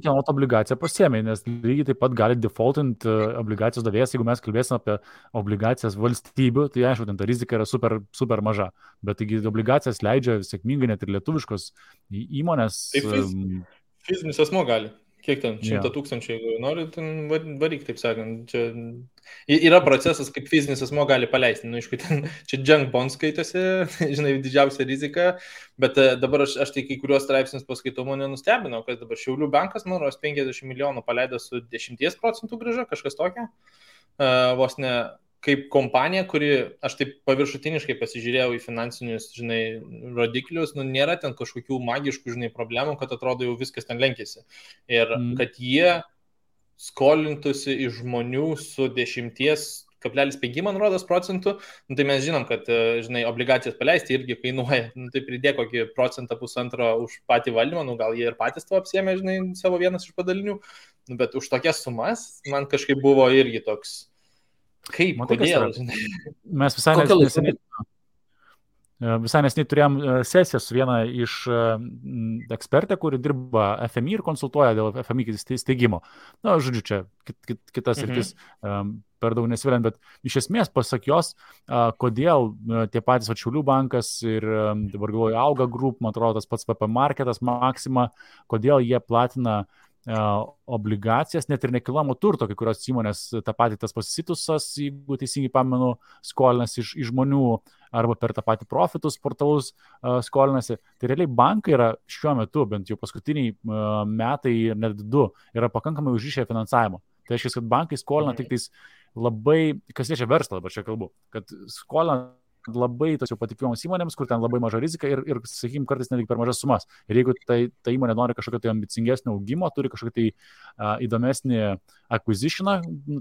kieno obligaciją pasiėmė, nes lygiai taip pat gali defaultint obligacijos davėjas, jeigu mes kalbėsime apie obligacijas valstybių, tai aišku, ten ta rizika yra super, super maža, bet taigi obligacijas leidžia sėkmingai net ir lietuviškos įmonės. Tai fizinis asmuo gali. Kiek ten? 100 000, jeigu nori, ten varyk, taip sakant. Čia yra procesas, kaip fizinis asmuo gali paleisti. Aišku, ten čia junk bond skaitėsi, žinai, didžiausia rizika, bet dabar aš tai kai kuriuos straipsnius paskaitau, mane nustebino, kad dabar Šiaulių bankas, man rodos, 50 milijonų paleido su 10% grąža, kažkas tokio. Vos ne kaip kompanija, kuri, aš taip paviršutiniškai pasižiūrėjau į finansinius, žinai, rodiklius, nėra ten kažkokių magiškų, žinai, problemų, kad atrodo jau viskas ten lenkėsi. Ir kad jie skolintųsi iš žmonių su 10,5, man rodos, procentų, tai mes žinom, kad, žinai, obligacijas paleisti irgi kainuoja, tai pridė kokį 1-1,5% už patį valdymą, gal jie ir patys to apsiėmė, žinai, savo vienas iš padalinių, bet už tokias sumas man kažkaip buvo irgi toks. Kaip, kodėl? Mes visai neseniai turėjom sesiją su viena iš ekspertė, kuri dirba FMI ir konsultuoja dėl FMI steigimo. Na, žodžiu, čia kitas rytis per daug nesviliant, bet iš esmės pasak jos, kodėl tie patys Šiaulių bankas ir dabar galvoju Auga Group, man atrodo, tas pats VP Marketas, Maxima, kodėl jie platina obligacijas, net ir nekilnojamo turto, kai kurios įmonės, tą patį tas Pasitusas, jeigu teisingai pamenu, skolinasi iš žmonių arba per tą patį profitus portalus skolinasi. Tai realiai bankai yra šiuo metu, bent jau paskutiniai metai ir net 2, yra pakankamai užrišę finansavimo. Tai reiškia, kad bankai skolina tik tais labai, kas liečia verslą, dabar čia kalbu, kad skolina labai tos jau patikimoms įmonėms, kur ten labai maža rizika ir sakykime, kartais netgi per mažas sumas. Ir jeigu ta įmonė nori kažkokio tai ambicingesnio augimo, turi kažkokį tai įdomesnį acquisitioną,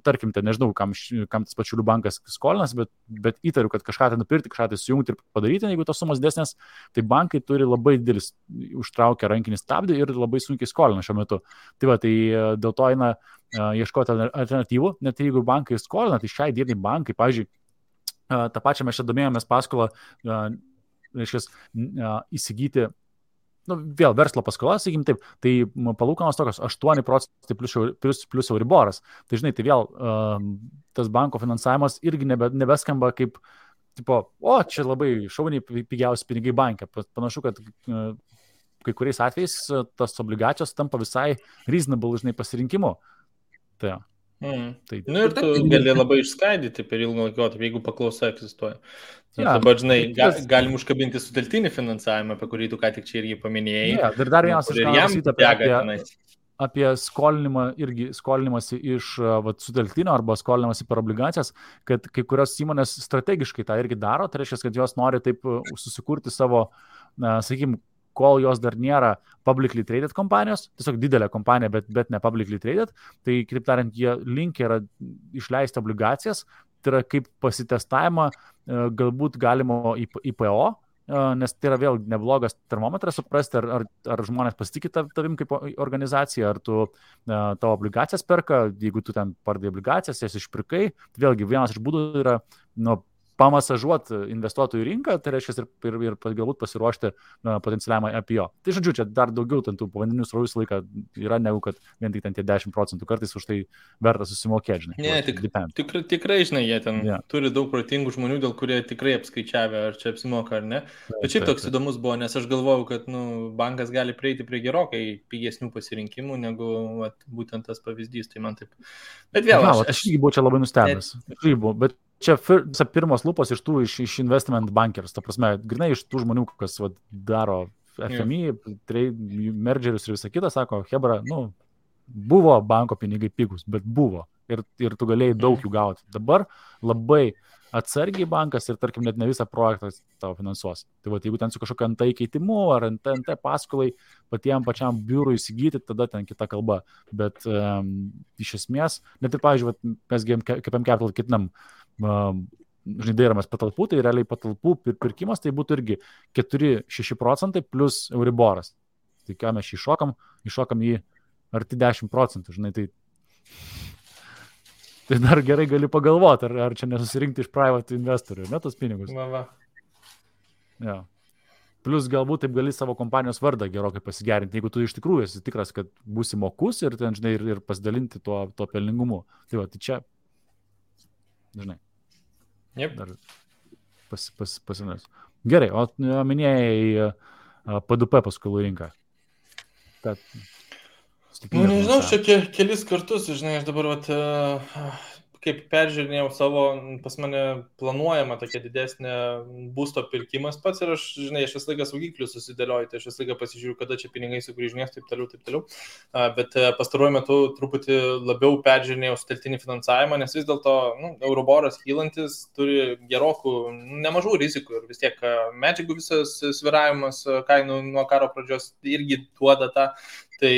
tarkim, ten nežinau, kam tas Šiaulių bankas skolinas, bet įtariu, kad kažką tai nupirkti, kažką tai sujungti ir padaryti, jeigu tos sumas desnės, tai bankai turi labai didelis užtraukę rankinį stabdį ir labai sunkiai skolina šiuo metu. Tai va, tai dėl to eina ieškoti alternatyvų, net jeigu bankai skolina, tai šiai dienai bankai, pavyzdžiui, tą pačią mes čia domėjomės paskolą, reiškia, įsigyti, vėl verslo paskola, sakykim taip, tai palūkanos tokios 8% plus Euriboras. Tai žinai, tai vėl tas banko finansavimas irgi nebeskamba kaip, tipo, čia labai šauniai pigiausi pinigai banke. Panašu, kad kai kuriais atvejais tas obligacijos tampa visai reasonable, žinai, pasirinkimu. Tai ir tu gali labai išskaidyti per ilgą laikotarpį, jeigu paklausa egzistuoja. Dabar, žinai, galim užkabinti sutelktinį finansavimą, apie kurį tu ką tik čia irgi paminėjai. Dar vienas apie skolinimąsi iš sutelktinio arba skolinimąsi per obligacijas, kad kai kurios įmonės strategiškai tą irgi daro, tai reiškia, kad jos nori taip susikurti savo, sakykime, kol jos dar nėra publicly traded kompanijos, tiesiog didelė kompanija, bet ne publicly traded, tai, kitaip tariant, jie linkę yra išleisti obligacijas, tai yra kaip pasitestavimą galbūt galimo IPO, nes tai yra vėl neblogas termometras suprasti, ar žmonės pasitikė tavim kaip organizacija, ar tu tavo obligacijas perka, jeigu tu ten pardai obligacijas, jas išpirkai, vėlgi vienas iš būdų yra pamasažuoti investuotojų rinką, tai reiškia ir galbūt pasiruošti potencialiam IPO. Tai žodžiu, čia dar daugiau tų povandeninių srovių laiką yra negu kad vien tik ten tie 10%, kartais už tai verta susimokėti, žinai. Ne, tikrai, žinai, jie ten turi daug protingų žmonių, dėl kurie tikrai apskaičiavę, ar čia apsimoka ar ne. Bet šiaip toks įdomus buvo, nes aš galvojau, kad bankas gali prieiti prie gerokai pigesnių pasirinkimų, negu būtent tas pavyzdys, tai man taip. Bet vėl, aš irgi buvau čia labai nustebęs. Bet čia pirmos lūpos iš investment bankers, ta prasme, grinai iš tų žmonių, kas daro FMI, mergerius ir visą kitą, sako, hebra, buvo banko pinigai pigus, bet buvo ir tu galėjai daug jų gauti. Dabar labai atsargiai bankas ir, tarkim, net ne visą projektą tavo finansuos. Tai jeigu ten su kažkokiu NT keitimu ar NT paskolai pačiam biurui įsigyti, tada ten kita kalba. Bet iš esmės, net ir, pavyzdžiui, mes KPM Capital ketinam dairomės patalpų, tai realiai patalpų pirkimas tai būtų irgi 4-6% plus Euriboras. Tai ką mes iššokam į arti 10%, žinai, tai dar gerai gali pagalvoti, ar čia nesusirinkti iš private investorių, ne tos pinigus. Ja. Plus galbūt taip gali savo kompanijos vardą gerokai pasigerinti, jeigu tu iš tikrųjų esi tikras, kad būsi mokus ir, ten, žinai, ir pasidalinti tuo pelningumu. Tai čia, žinai, dar pasinės. Gerai, o minėjai PDP paskolų rinką. Nežinau, čia kelis kartus, žinai, aš dabar kaip peržiūrinėjau savo, pas mane planuojama tokia didesnė būsto pirkimas pats ir aš visą laiką saugiklius susidėlioju, tai aš visą laiką pasižiūriu, kada čia pinigai sugrįžinės, taip toliau. Bet pastaruoju metu truputį labiau peržiūrinėjau sutelktinį finansavimą, nes vis dėlto Euriboras kylantis turi gerokų, nemažų rizikų ir vis tiek medžiagų visas sviravimas kainų nuo karo pradžios irgi duoda tą. Tai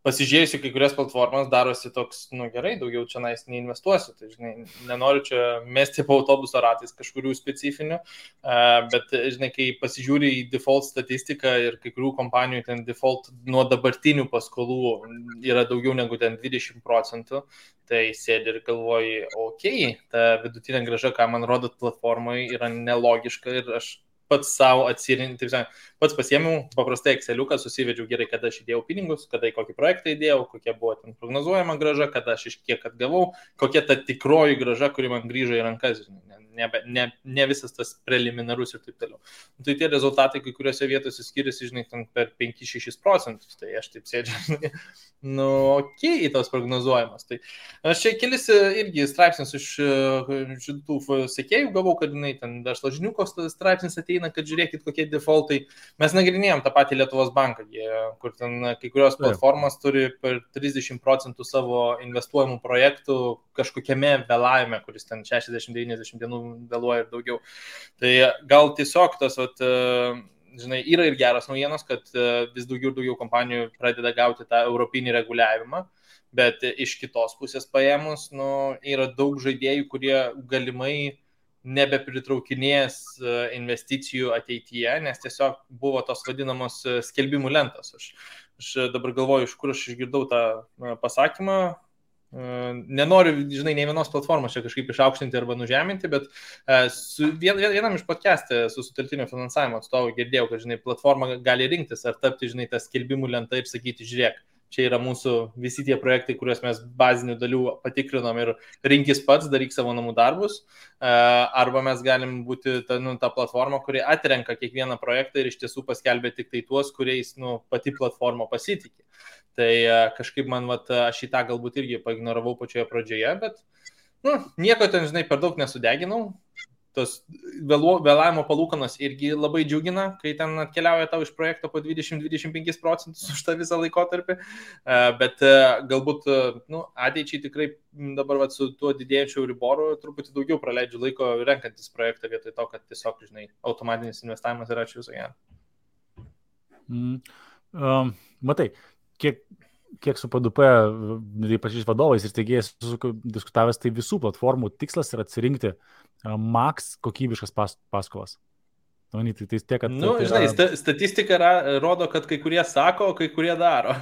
pasižiūrėsiu, kai kurias platformas darosi toks, gerai, daugiau čia neinvestuosiu, tai, žinai, nenoriu čia mesti po autobuso ratais kažkurių specifinių, bet, žinai, kai pasižiūri į default statistiką ir kai kurių kompanijų ten default nuo dabartinių paskolų yra daugiau negu ten 20%, tai sėdi ir galvoji, ta vidutinė grąža, ką man rodot platformai, yra nelogiška ir aš pats savo atsirinkti, pats pasiėmiau paprastai Exceliuką, susivedžiau gerai, kada aš įdėjau pinigus, kada į kokį projektą įdėjau, kokia buvo ten prognozuojama grąža, kada aš iš kiek atgavau, kokia ta tikroji grąža, kuri man grįžo į rankas, ne visas tas preliminarus ir taip toliau. Tai tie rezultatai kai kuriuose vietose skiriasi, žinai, per 5-6%, tai aš taip sėdžiu, į tos prognozuojamas. Tai aš čia kelis irgi straipsnius iš šitų sekėjų gavau, kad, žinai, ten Verslo žiniuko straipsnis ateina, kad žiūrėkit, kokie defaultai. Mes nagrinėjom tą patį Lietuvos banką, kur ten kai kurios platformos turi per 30% savo investuojamų projektų kažkokiame vėlavime, kuris ten 60-90 dienų vėluoja ir daugiau. Tai gal tiesiog tas, žinai, yra ir geras naujienos, kad vis daugiau ir daugiau kompanijų pradeda gauti tą europinį reguliavimą, bet iš kitos pusės paėmus, yra daug žaidėjų, kurie galimai nebepritraukinės investicijų ateityje, nes tiesiog buvo tos vadinamos skelbimų lentos. Aš dabar galvoju, iš kur aš išgirdau tą pasakymą. Nenoriu, žinai, nei vienos platformos čia kažkaip išaukštinti arba nužeminti, bet vienam iš podcast'e su sutelktinio finansavimo atstovu girdėjau, kad, žinai, platforma gali rinktis ar tapti, žinai, tą skelbimų lentą ir sakyti, žiūrėk, čia yra mūsų visi tie projektai, kuriuos mes bazinių dalių patikrinom ir rinkis pats, daryk savo namų darbus, arba mes galim būti ta platforma, kuri atrenka kiekvieną projektą ir iš tiesų paskelbė tik tai tuos, kuriais pati platforma pasitikė. Tai kažkaip man, aš į tą galbūt irgi paignoravau pačioje pradžioje, bet nieko ten, žinai, per daug nesudeginau. Tos vėlavimo palūkanos irgi labai džiugina, kai ten atkeliauja tau iš projekto po 20-25% už tą visą laikotarpį, bet galbūt ateičiai tikrai dabar su tuo didėjančiu Euriboru truputį daugiau praleidžiu laiko renkantis projektą vietoj to, kad tiesiog, žinai, automatinis investavimas yra ačiū viso gero. Matai, kiek su PDP, ypač vadovais ir steigėjais diskutavęs, tai visų platformų tikslas yra atsirinkti max kokybiškas paskolas. Tai tiek, kad... Žinai, statistika rodo, kad kai kurie sako, kai kurie daro.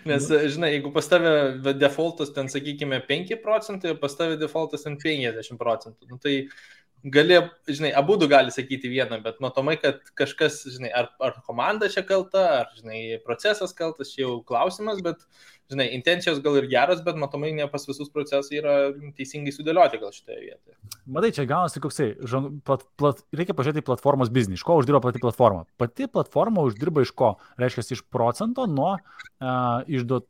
Nes, žinai, jeigu pas tave defaultas ten, sakykime, 5%, pas tave defaultas ten 50%, tai gali, žinai, abudu gali sakyti vieną, bet matomai, kad kažkas, žinai, ar komanda čia kalta, ar, žinai, procesas kaltas, čia jau klausimas, bet, žinai, intencijos gal ir geros, bet matomai ne pas visus procesai yra teisingai sudėlioti gal šitoje vietoje. Matai, čia gaunasi koksai, reikia pažiūrėti į platformos biznį, iš ko uždirba pati platforma. Pati platforma uždirba iš ko? Reiškia, iš procento nuo išduot,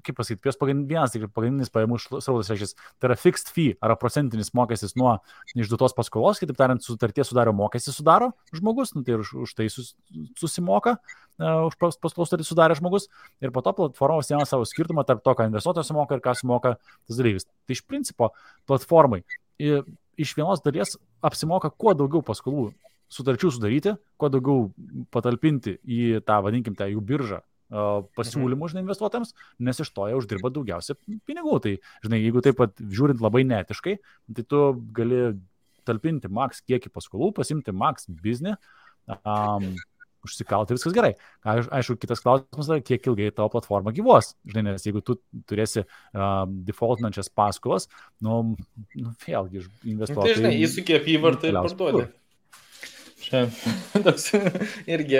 kaip pasakyti, vienas pagrindinis pajamų srautas, reiškia, tai yra fixed fee, ar procentinis mokestis nuo išduotos paskolos, kitaip tariant, sutarties sudario mokestis sudaro žmogus, tai už tai susimoka, už paskolos sutartį sudarė žmogus, ir po to platforma užsiema savo skirtumą tarp to, ką investuotojas sumoka ir ką sumoka tas dalyvis. Tai iš principo platformai iš vienos dalies apsimoka kuo daugiau paskolų sutarčių sudaryti, kuo daugiau patalpinti į tą, vadinkim, tą jų biržą pasiūlymų, žinai, investuotojams, nes iš to jie uždirba daugiausia pinigų. Tai, žinai, jeigu taip pat žiūrint labai netiškai, tai tu gali talpinti maks kiekį paskolų, pasimti maks biznį, užsikalti, viskas gerai. Aišku, kitas klausimas yra, kiek ilgai tavo platforma gyvuos. Žinai, nes jeigu tu turėsi defaultinančias paskolas, vėlgi investuotojai... Tai, žinai, įsukė apyvartą ir parduodė. Čia toks irgi,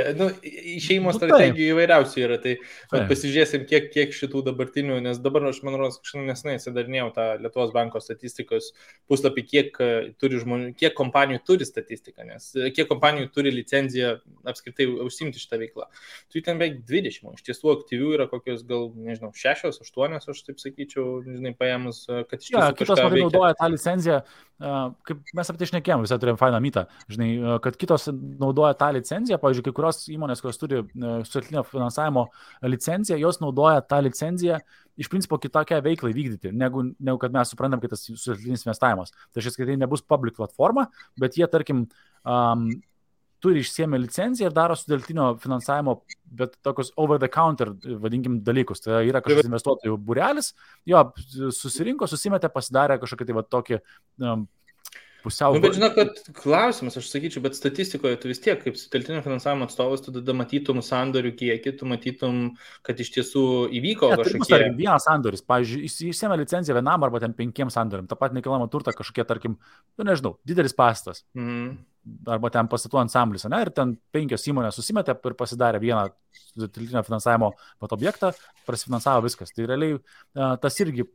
išeimo strategijų įvairiausių yra, tai pasižiūrėsim, kiek šitų dabartinių, nes dabar aš, man rodos, nesnai atsidarinėjau tą Lietuvos banko statistikos puslapį, kiek kompanijų turi statistiką, nes kiek kompanijų turi licenciją apskritai užsimti šitą veiklą. Tai ten beveik 20, iš tiesų aktyvių yra kokios gal, nežinau, 6, 8, aš taip sakyčiau, žinai, paėmus, kad iš tiesų kitos matai naudoja tą licenciją, kaip mes apie tai šnekėjom, visai turėjom fainą mytą, žinai, kad kitos naudoja tą licenciją, pavyzdžiui, kai kurios įmonės, kurios turi sutartinio finansavimo licenciją, jos naudoja tą licenciją iš principo kitokią veiklą vykdyti, negu kad mes suprantam, kad tas sutartinis investavimas. Tai šis, kad tai nebus public platforma, bet jie, tarkim, turi išsiėmę licenciją ir daro sutartinio finansavimo, bet tokius over the counter, vadinkim, dalykus. Tai yra kažkoks investuotojų būrelis, jo susirinko, susimetė, pasidarė kažkokį tai va tokį pusiau... Bet žinau, kad klausimas, aš sakyčiau, bet statistikoje tu vis tiek, kaip sutelktinio finansavimo atstovas, tu tada matytum sandorių kiekį, tu matytum, kad iš tiesų įvyko kažkokie... Tarkim, vienas sandoris, pavyzdžiui, išsiėmė licenciją vienam arba ten 5 sandoriam, tą pat nekilnojamą turtą kažkokie, tarkim, nežinau, didelis pastatas. Arba ten pastatų ansamblis, ir ten 5 įmonės susimetė ir pasidarė vieną sutelktinio finansavimo objektą, prasifinansavo viskas. Tai realiai tas irgi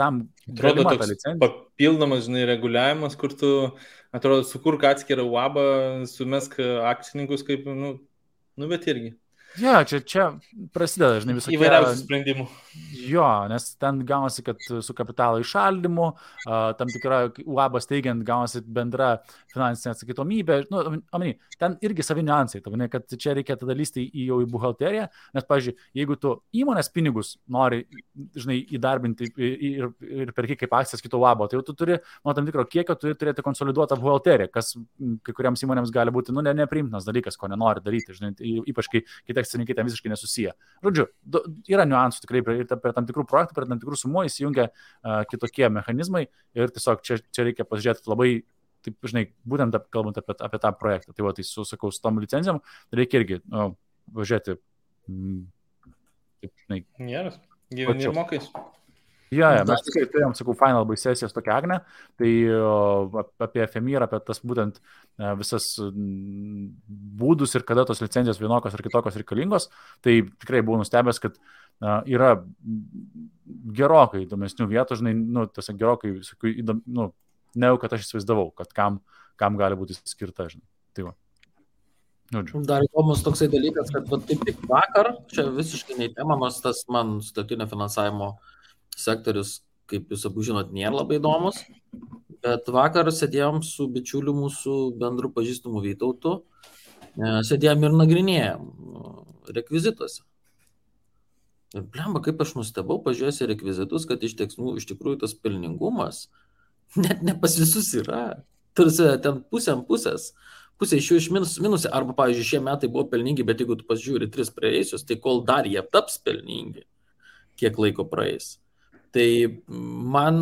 tam atrodo toks papildomas, žinai, reguliavimas, kur tu, atrodo, sukurk atskirą UABą, sumesk akcininkus kaip, bet irgi. Ja, čia prasideda, žinai, visokie... Įvairiausių sprendimų. Jo, nes ten gaunasi, kad su kapitalo įšaldymu, tam tikra UAB steigiant gaunasi bendra finansinė atsakytomybė. Ten irgi savi niuansai, kad čia reikia tada lysti jau į buhalteriją, nes, pavyzdžiui, jeigu tu įmonės pinigus nori, žinai, įdarbinti ir perki kaip akcijas kito UAB, tai jau tu turi, tam tikro kiekio, turi turėti konsoliduotą buhalteriją, kas kai kuriams įmonėms gali būti, nepriimtinas dalykas, ko nenori daryti, žinai, ypač kai akcininkai ten visiškai nesusiję. Žodžiu, yra niuansų tikrai per tam tikrų projektų, per tam tikrų sumų įsijungia kitokie mechanizmai ir tiesiog čia reikia pasižiūrėti labai, taip, žinai, būtent kalbant apie tą projektą. Tai va, tai sakau, su tom licencijom reikia irgi važiuoti, taip, žinai. Geras, gyveni ir mokais. Ja, mes tikrai turėjom, sakau, final bai sesijas tokią Agnę, tai apie FMI ir apie tas būtent visas būdus ir kada tos licencijos vienokios ar kitokios reikalingos, tai tikrai buvau nustebęs, kad yra gerokai įdomesnių vietų, žinai, tiesiog gerokai, negu kad aš įsivaizdavau, kad kam gali būti skirta, žinai. Tai va. Dar įdomus toksai dalykas, kad taip tik vakar, čia visiškai neįtemamas tas man sutartinio finansavimo sektorius, kaip jūs abu žinot, nėra labai įdomus, bet vakar sėdėjom su bičiuliu mūsų bendru pažįstamu Vytautu, sėdėjom ir nagrinėjom rekvizituose. Ir blemba, kaip aš nustebau, pažiūrėjęs į rekvizitus, kad iš tikrųjų tas pelningumas net ne pas visus yra. Tarsi ten pusė iš jų iš minusė, arba, pavyzdžiui, šie metai buvo pelningi, bet jeigu tu pasižiūri 3 praėjusius, tai kol dar jie taps pelningi, kiek laiko praeis. Tai man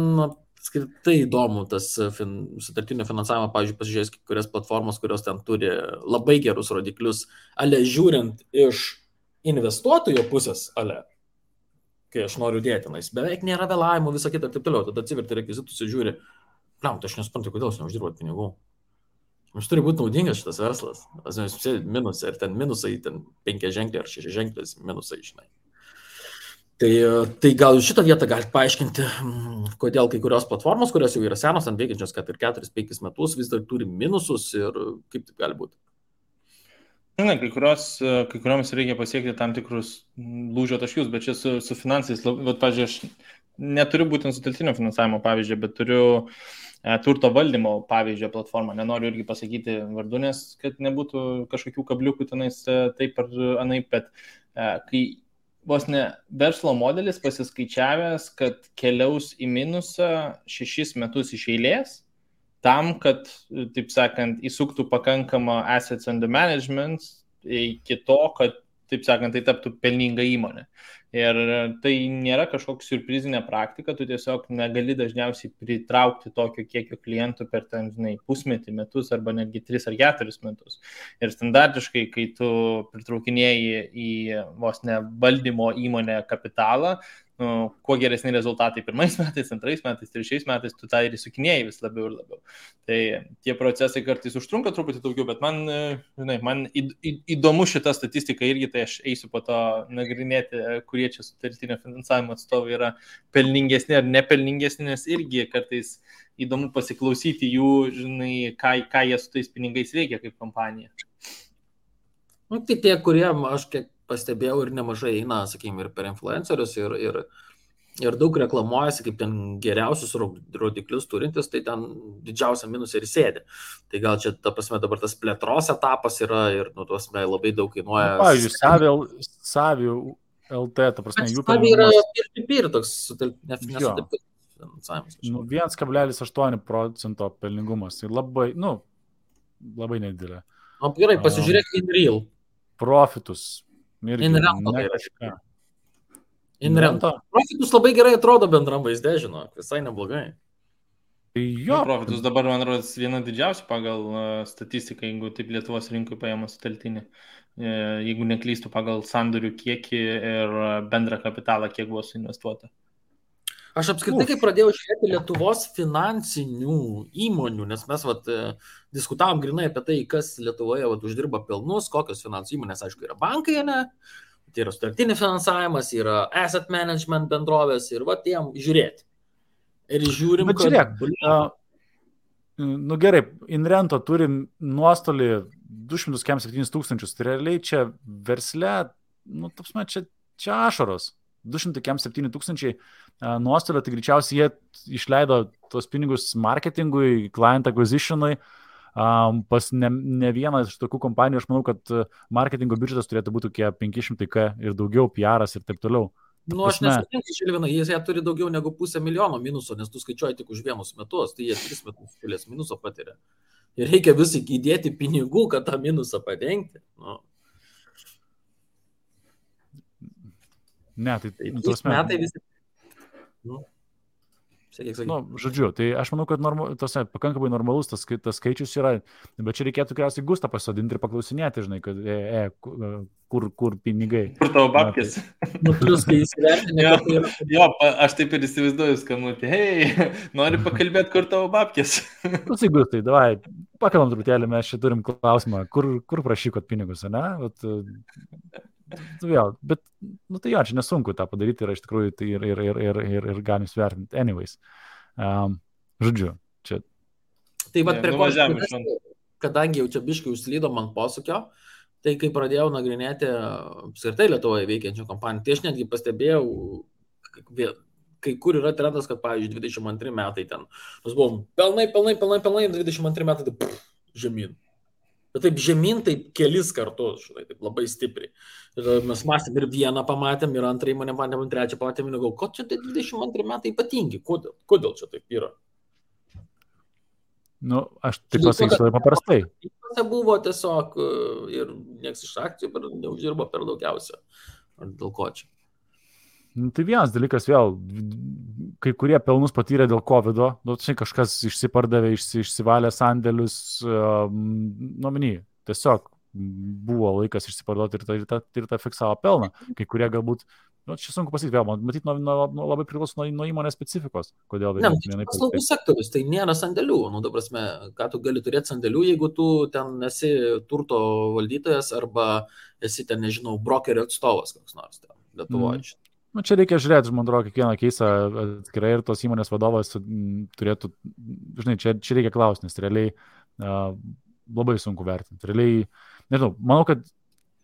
skirtai įdomu tas sutartinio finansavimo, pavyzdžiui, pasižiūrėjus kurias platformos, kurios ten turi labai gerus rodiklius, žiūrint iš investuotojo pusės, kai aš noriu dėti, beveik nėra vėlavimų, visą kitą ir taip toliau, tada atsiverti rekvizitus ir žiūri, tai aš nesuprantu, kodėl aš neuždirbu pinigų. Mums turi būti naudingas šitas verslas. Minusai, ir ten minusai, ten 5 ženkliai ar 6 ženkliai minusai, žinai. Tai gal šitą vietą galite paaiškinti, kodėl kai kurios platformos, kurios jau yra senos, ant veikiančios, kad ir 4-5 metus vis dar turi minusus ir kaip taip gali būti. Na, kai kurioms reikia pasiekti tam tikrus lūžio taškius, bet čia su finansais, pavyzdžiui, aš neturiu būtent sutelktinio finansavimo pavyzdžio, bet turiu turto valdymo pavyzdžio platformą. Nenoriu irgi pasakyti vardų, nes kad nebūtų kažkokių kabliukų tenais taip ar anaip, bet kai vos ne verslo modelis pasiskaičiavęs, kad keliaus į minusą 6 metus iš eilės, tam, kad, taip sakant, įsuktų pakankamą assets under management iki to, kad, taip sakant, tai taptų pelninga įmonė. Ir tai nėra kažkokia surprizinė praktika, tu tiesiog negali dažniausiai pritraukti tokio kiekio klientų per ten, žinai, pusmetį, metus arba netgi 3 ar 4 metus. Ir standartiškai, kai tu pritraukinėjai į vos ne valdymo įmonę kapitalą, kuo geresni rezultatai 1 metais, 2 metais, 3 metais, tu tą ir įsukinėjai vis labiau ir labiau. Tai tie procesai kartais užtrunka truputį daugiau, bet man įdomu šita statistika irgi, tai aš eisiu po to nagrinėti, kurie čia sutelktinio finansavimo atstovai yra pelningesni ar nepelningesni, nes irgi kartais įdomu pasiklausyti jų, žinai, ką jie su tais pinigais veikia kaip kompanija. Tai tie, kurie, aš kiek pastebėjau ir nemažai eina, sakykime, ir per influencerius, ir daug reklamuojasi kaip ten geriausius rodiklius turintis, tai ten didžiausia minusai ir sėdi. Tai gal čia, ta prasme, dabar tas plėtros etapas yra ir, labai daug kainuoja. Pavyzdžiui, Savi LT, ta prasme, jų Savi yra peer-to-peer toks nesutelktas finansavimas. 1,8% pelningumas. Tai labai nedidelė. O gerai, pasižiūrėk InReal. Profitus. InRento. Profitus labai gerai atrodo bendram vaizde, žinok, visai neblogai. Jo. Profitus dabar, man rodos, viena didžiausia pagal statistiką, jeigu taip Lietuvos rinkui paėmus sutelktinį. Jeigu neklystu pagal sandorių kiekį ir bendrą kapitalą, kiek buvo suinvestuota. Aš apskritai, kai pradėjau žiūrėti Lietuvos finansinių įmonių, nes mes diskutavom grinai apie tai, kas Lietuvoje uždirba pelnus, kokios finansų įmonės, aišku, yra bankai, ne? Tai yra sutelktinis finansavimas, yra asset management bendrovės ir jiem žiūrėti. Ir žiūrim, kad... Žiūrėk, gerai, InRento turi nuostolį 207 tūkstančius, tai realiai čia versle, čia ašaros. 207 tūkstančiai nuostolio, tai greičiausiai jie išleido tos pinigus marketingui, client acquisitionui, pas ne vieną iš tokių kompanijų, aš manau, kad marketingo biudžetas turėtų būti 500K ir daugiau, PR'as ir taip toliau. Aš nesutinku, Žilvinai, jie turi daugiau negu 500,000 minuso, nes tu skaičiuoji tik už 1 metus, tai jie 3 metus šalies minuso patiria. Ir reikia visai įdėti pinigų, kad tą minusą padengti. Ne, tai tos metai visi. Žodžiu, tai aš manau, kad pakankamai normalus tas skaičius yra, bet čia reikėtų tikriausiai Gustą pasodinti ir paklausinėti, žinai, kad kur pinigai. Kur tavo babkės? Plius, kai įsivertinė. Jo, aš taip ir įsivaizduoju skambutį. Hei, nori pakalbėti, kur tavo babkės? Gustai, davai, pakalbam truputėlį, mes čia turim klausimą, kur prašykot pinigus, ne? Vėl, bet, tai jo, čia nesunku tą padaryti ir iš tikrųjų tai ir galim svertinti. Anyways, žodžiu, čia. Tai prie ko, kadangi jau čia biškai užslydo man posūkio, tai kai pradėjau nagrinėti apskritai Lietuvoje veikiančių kompanijų, tai aš netgi pastebėjau, kai kur yra trendas, kad, pavyzdžiui, 22 metai ten, mes buvom pelnai, 22 metai tai žemyn. Bet taip žemyn, taip kelis kartus, žinai, taip labai stipriai. Ir mes mąstėm ir vieną pamatėm, ir antrą įmonę pamatėm, ir trečią pamatėm, ir galvoju, ko čia tai 22 metai ypatingi, kodėl čia taip yra? Aš taip pasakysiu labai paprastai. Buvo tiesiog ir nieks iš akcijų neuždirbo per daugiausia. Ar dėl ko čia? Tai vienas dalykas vėl, kai kurie pelnus patyrė dėl COVID-o, kažkas išsipardavė, išsivalė sandėlius, tiesiog buvo laikas išsiparduoti ir tą fiksavo pelną. Kai kurie galbūt Nu, čia sunku pasakyti, vėl, matyt, labai priklauso nuo įmonės specifikos, kodėl Ne, vienai paslaugų sektorius, tai nėra sandėlių. Nu, dabar mes, ką tu gali turėti sandėlių, jeigu tu ten esi turto valdytojas arba esi ten, nežinau, brokerio atstovas koks nors ten Lietuvoje. Nu, čia reikia žiūrėti, man atrodo, kiekvieną keisą atskirai ir tos įmonės vadovas turėtų, žinai, čia reikia klausti, nes realiai labai sunku vertinti. Realiai, nežinau, manau, kad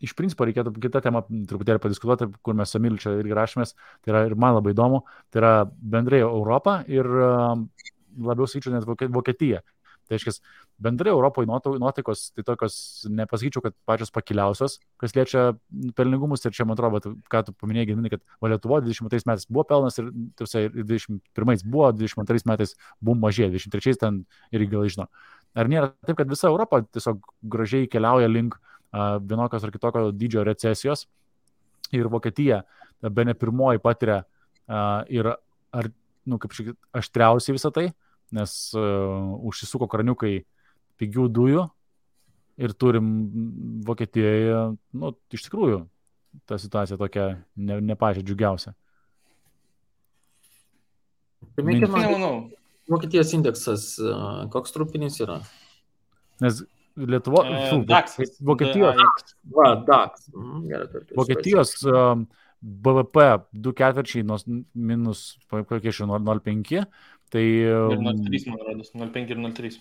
iš principo reikėtų kitą temą truputėlį padiskutuoti, kur mes su Emiliu čia irgi rašomės, tai yra ir man labai įdomu, tai yra bendrai Europą ir labiau sakyčiau net Vokietija. Tai reiškia, bendrai Europoje nuotaikos, tai tokios, nepasakyčiau, kad pačios pakiliausios, kas liečia pelningumus, ir čia man atrodo, ką tu paminėjai, Gediminai, kad Lietuvoje 22 metais buvo pelnas ir 21 buvo, 22 metais buvo mažė, 23 ten irgi gal žino. Ar nėra taip, kad visa Europa tiesiog gražiai keliauja link vienokios ar kitokio dydžio recesijos ir Vokietija bene pirmoji patiria ir ar, nu, kaip šiek aštriausiai visą tai, nes užsisuko kraniukai pigių dujų ir turim Vokietijoje, nu, iš tikrųjų, ta situacija tokia ne pačia džiugiausia. Vokietijos indeksas, koks trupinis yra? Nes Vokietijos Vokietijos BVP 2/4 minus 0,5, tai 0,3 man rodos, 0,5 ir 0,3.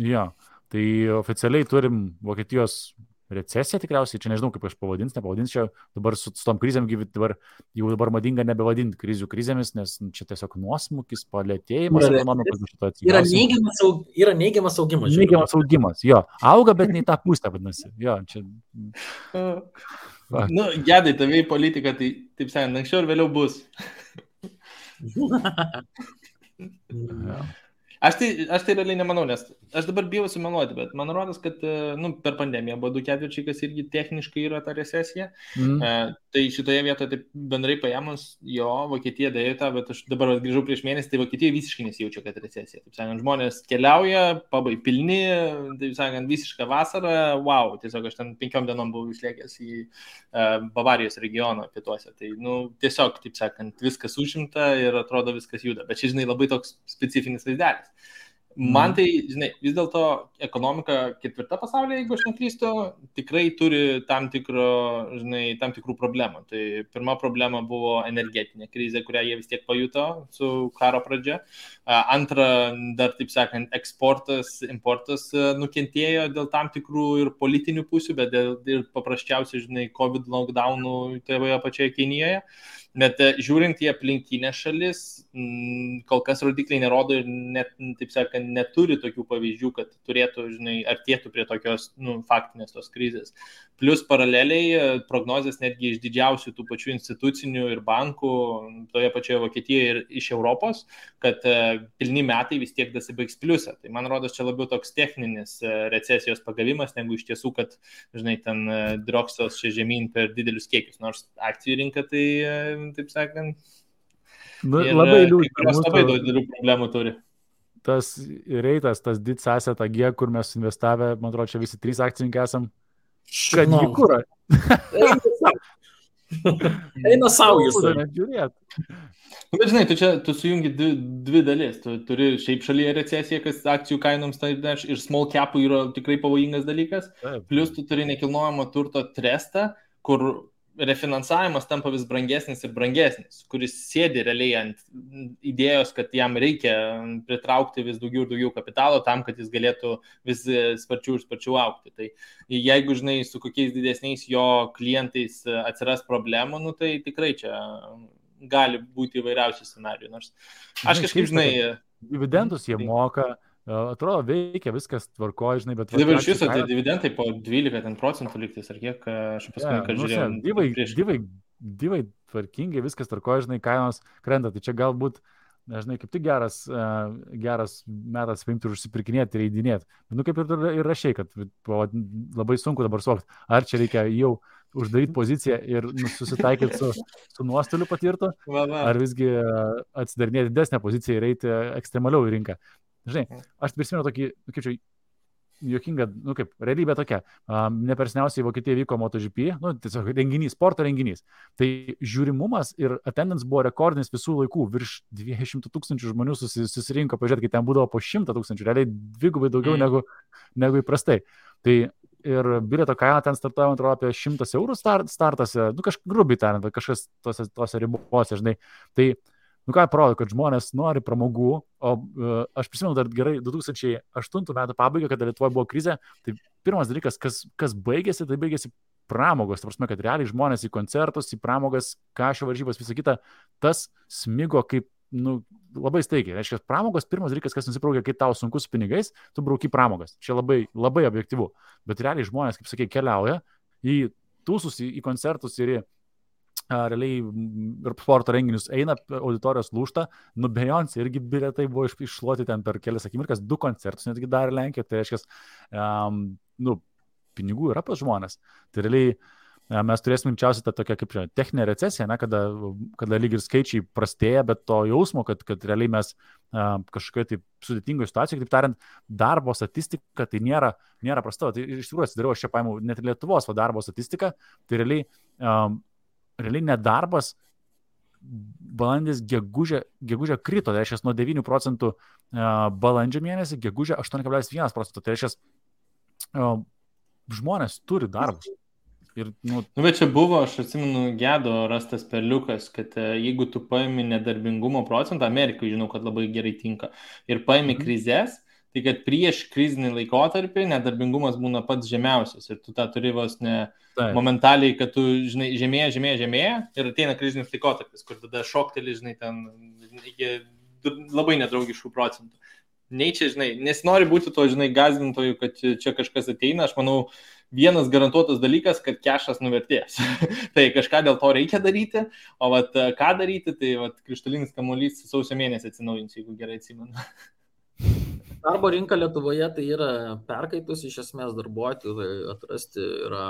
Jo, tai oficialiai turim Vokietijos recesiją tikriausiai, čia nežinau, kaip aš nepavadinsiu, dabar su tom krizėm dabar madinga nebevadinti krizių krizėmis, nes čia tiesiog nuosmukis, palėtėjimas ekonomikos. Yra neigiamas augimas. Neigiamas augimas, jo. Auga, bet ne į tą pusę, vadinasi. Jo, čia... Nu, Gedai, tavai politika, tai, taip sakant, anksčiau ir vėliau bus. Aš tai realiai nemanau, nes aš dabar bijau sumeluoti, bet man rodos, kad per pandemiją buvo 2/4, kas irgi techniškai yra ta recesija. Tai šitoje vietoje taip bendrai paėmus, jo, Vokietija darė tą, bet aš dabar grįžau prieš mėnesį, tai Vokietija visiškai nesijaučia, kad recesija. Taip sakant, žmonės keliauja, pabai pilni, taip sakant, visiška vasara, wow, tiesiog aš ten 5 dienom buvau išlėkęs į Bavarijos regioną pietuose. Tai, tiesiog, taip sakant, viskas užimta ir atrodo viskas juda. Bet čia, žinai, labai toks specifinis vaizdelis. Man tai, žinai, vis dėlto ekonomika 4 pasaulyje, jeigu aš neklystu, tikrai turi tam tikrų problemų. Tai pirma problema buvo energetinė krizė, kurią jie vis tiek pajuto su karo pradžia. Antra, dar, taip sakant, eksportas, importas nukentėjo dėl tam tikrų ir politinių pusių, bet ir paprasčiausiai, žinai, COVID lockdownų toje pačioje Kinijoje. Bet žiūrint į aplinkinę šalis, kol kas rodikliai nerodo ir net, taip sakant, neturi tokių pavyzdžių, kad turėtų, žinai, artėtų prie tokios faktinės tos krizės. Plus paraleliai prognozės netgi iš didžiausių tų pačių institucinių ir bankų toje pačioje Vokietijoje ir iš Europos, kad pilni metai vis tiek dasibaigs pliusą. Tai man rodos čia labiau toks techninis recesijos pagavimas, negu iš tiesų, kad, žinai, ten droksos čia žemyn per didelius kiekius. Nors akcijų rinka tai, taip sakant, labai liūdna. Labai daug didelių problemų turi. Tas reitas, tas did asset AG, kur mes investavę, man atrodo, čia visi 3 akcininkai esam. Kad jį kurą. Eina savo jūs. Bet žinai, tu sujungi dvi dalis. Tu turi šiaip šalyje recesiją, kas akcijų kainoms ir small capų yra tikrai pavojingas dalykas. Plus tu turi nekilnojamo turto trestą, kur refinansavimas tampa vis brangesnis ir brangesnis, kuris sėdi realiai ant idėjos, kad jam reikia pritraukti vis daugiau ir daugiau kapitalo tam, kad jis galėtų vis sparčiau ir sparčiau augti. Tai jeigu, žinai, su kokiais didesniais jo klientais atsiras problemų, tai tikrai čia gali būti įvairiausių scenarijų. Nors aš kažkaip, žinai... Dividendus jie moka, atrodo, veikia, viskas tvarkoja, žinai, bet... Dabar iš viso, tai dividendai po 12% liktis, ar kiek aš paskui, kad žiūrėjau. Divai tvarkingai, viskas tvarkoja, žinai, kainos krenta, tai čia galbūt, žinai, kaip tik geras metas paimti ir užsipirkinėti ir įdinėti. Kaip ir rašiai, kad labai sunku dabar suvokti, ar čia reikia jau uždaryti poziciją ir susitaikyti su nuostoliu patirtu, ar visgi atsidarinėti didesnę poziciją ir eiti ekstremaliau į rinką. Žinai, aš prisimenu tokį, kaip čia, juokinga, kaip realybė tokia. Nepersniausiai Vokietijoje vyko MotoGP, tiesiog renginys, sporto renginys. Tai žiūrimumas ir attendance buvo rekordinis visų laikų, virš 200 000 žmonių susirinko, pažiūrėti, kai ten būdavo po 100 000, realiai dvigubai daugiau negu įprastai. Tai ir bilieto kaina ten startuoja, man atrodo, apie 100 eurų startas, grubiai tariant, kažkas tose ribose, žinai. Tai ką parodo, kad žmonės nori pramogų, o aš prisimenu dar gerai 2008 metų pabaigą, kada Lietuvoje buvo krizė, tai pirmas dalykas, kas baigėsi, tai baigėsi pramogos, ta prasme, kad realiai žmonės į koncertus, į pramogas, kašio varžybas, visą kitą, tas smigo kaip, labai staigiai. Reiškia, pramogos pirmas dalykas, kas nusibraukia, kai tau sunku su pinigais, tu brauki pramogas. Čia labai, labai objektyvu. Bet realiai žmonės, kaip sakai, keliauja į tūsus, į koncertus ir į realiai ir sporto renginius eina, auditorijos lūžta, Beyoncé irgi bilietai buvo iššluoti ten per kelias akimirkas, 2 koncertus netgi darė Lenkijoje, tai reiškia, pinigų yra pas žmonės. Tai realiai mes turėsime greičiausiai tą tokią kaip techninę recesiją, kada lyg ir skaičiai prastėja, bet to jausmo, kad realiai mes kažkokioje tai sudėtingoje situacijoje, kaip tariant, darbo statistika tai nėra prasta. Tai iš tikrųjų atsidariau, aš čia paėmiau net ir Lietuvos darbo statistiką, tai realiai nedarbas balandis gegužę krito, tai reiškia nuo 9% balandžio mėnesį, gegužę 8,1%, tai reiškia žmonės turi darbus. Ir, bet čia buvo, aš atsimenu, Gedo rastas perliukas, kad jeigu tu paimi nedarbingumo procentą, Amerikai žinau, kad labai gerai tinka, ir paimi krizės, tai kad prieš krizinį laikotarpį nedarbingumas būna pats žemiausias ir tu tą turi vos ne momentaliai, kad tu, žinai, žemėja ir ateina krizinis laikotarpis, kur tada šokteli, žinai, ten iki labai nedraugiškų procentų. Nei čia, žinai, nesinori būti to, žinai, gąsdintojų, kad čia kažkas ateina, aš manau, vienas garantuotas dalykas, kad kešas nuvertės. Tai kažką dėl to reikia daryti, o ką daryti, tai krištalinis kamuolys sausio mėnesį atsinaujins, jeigu gerai atsimenu. Darbo rinka Lietuvoje tai yra perkaitus, iš esmės darbuotojų atrasti yra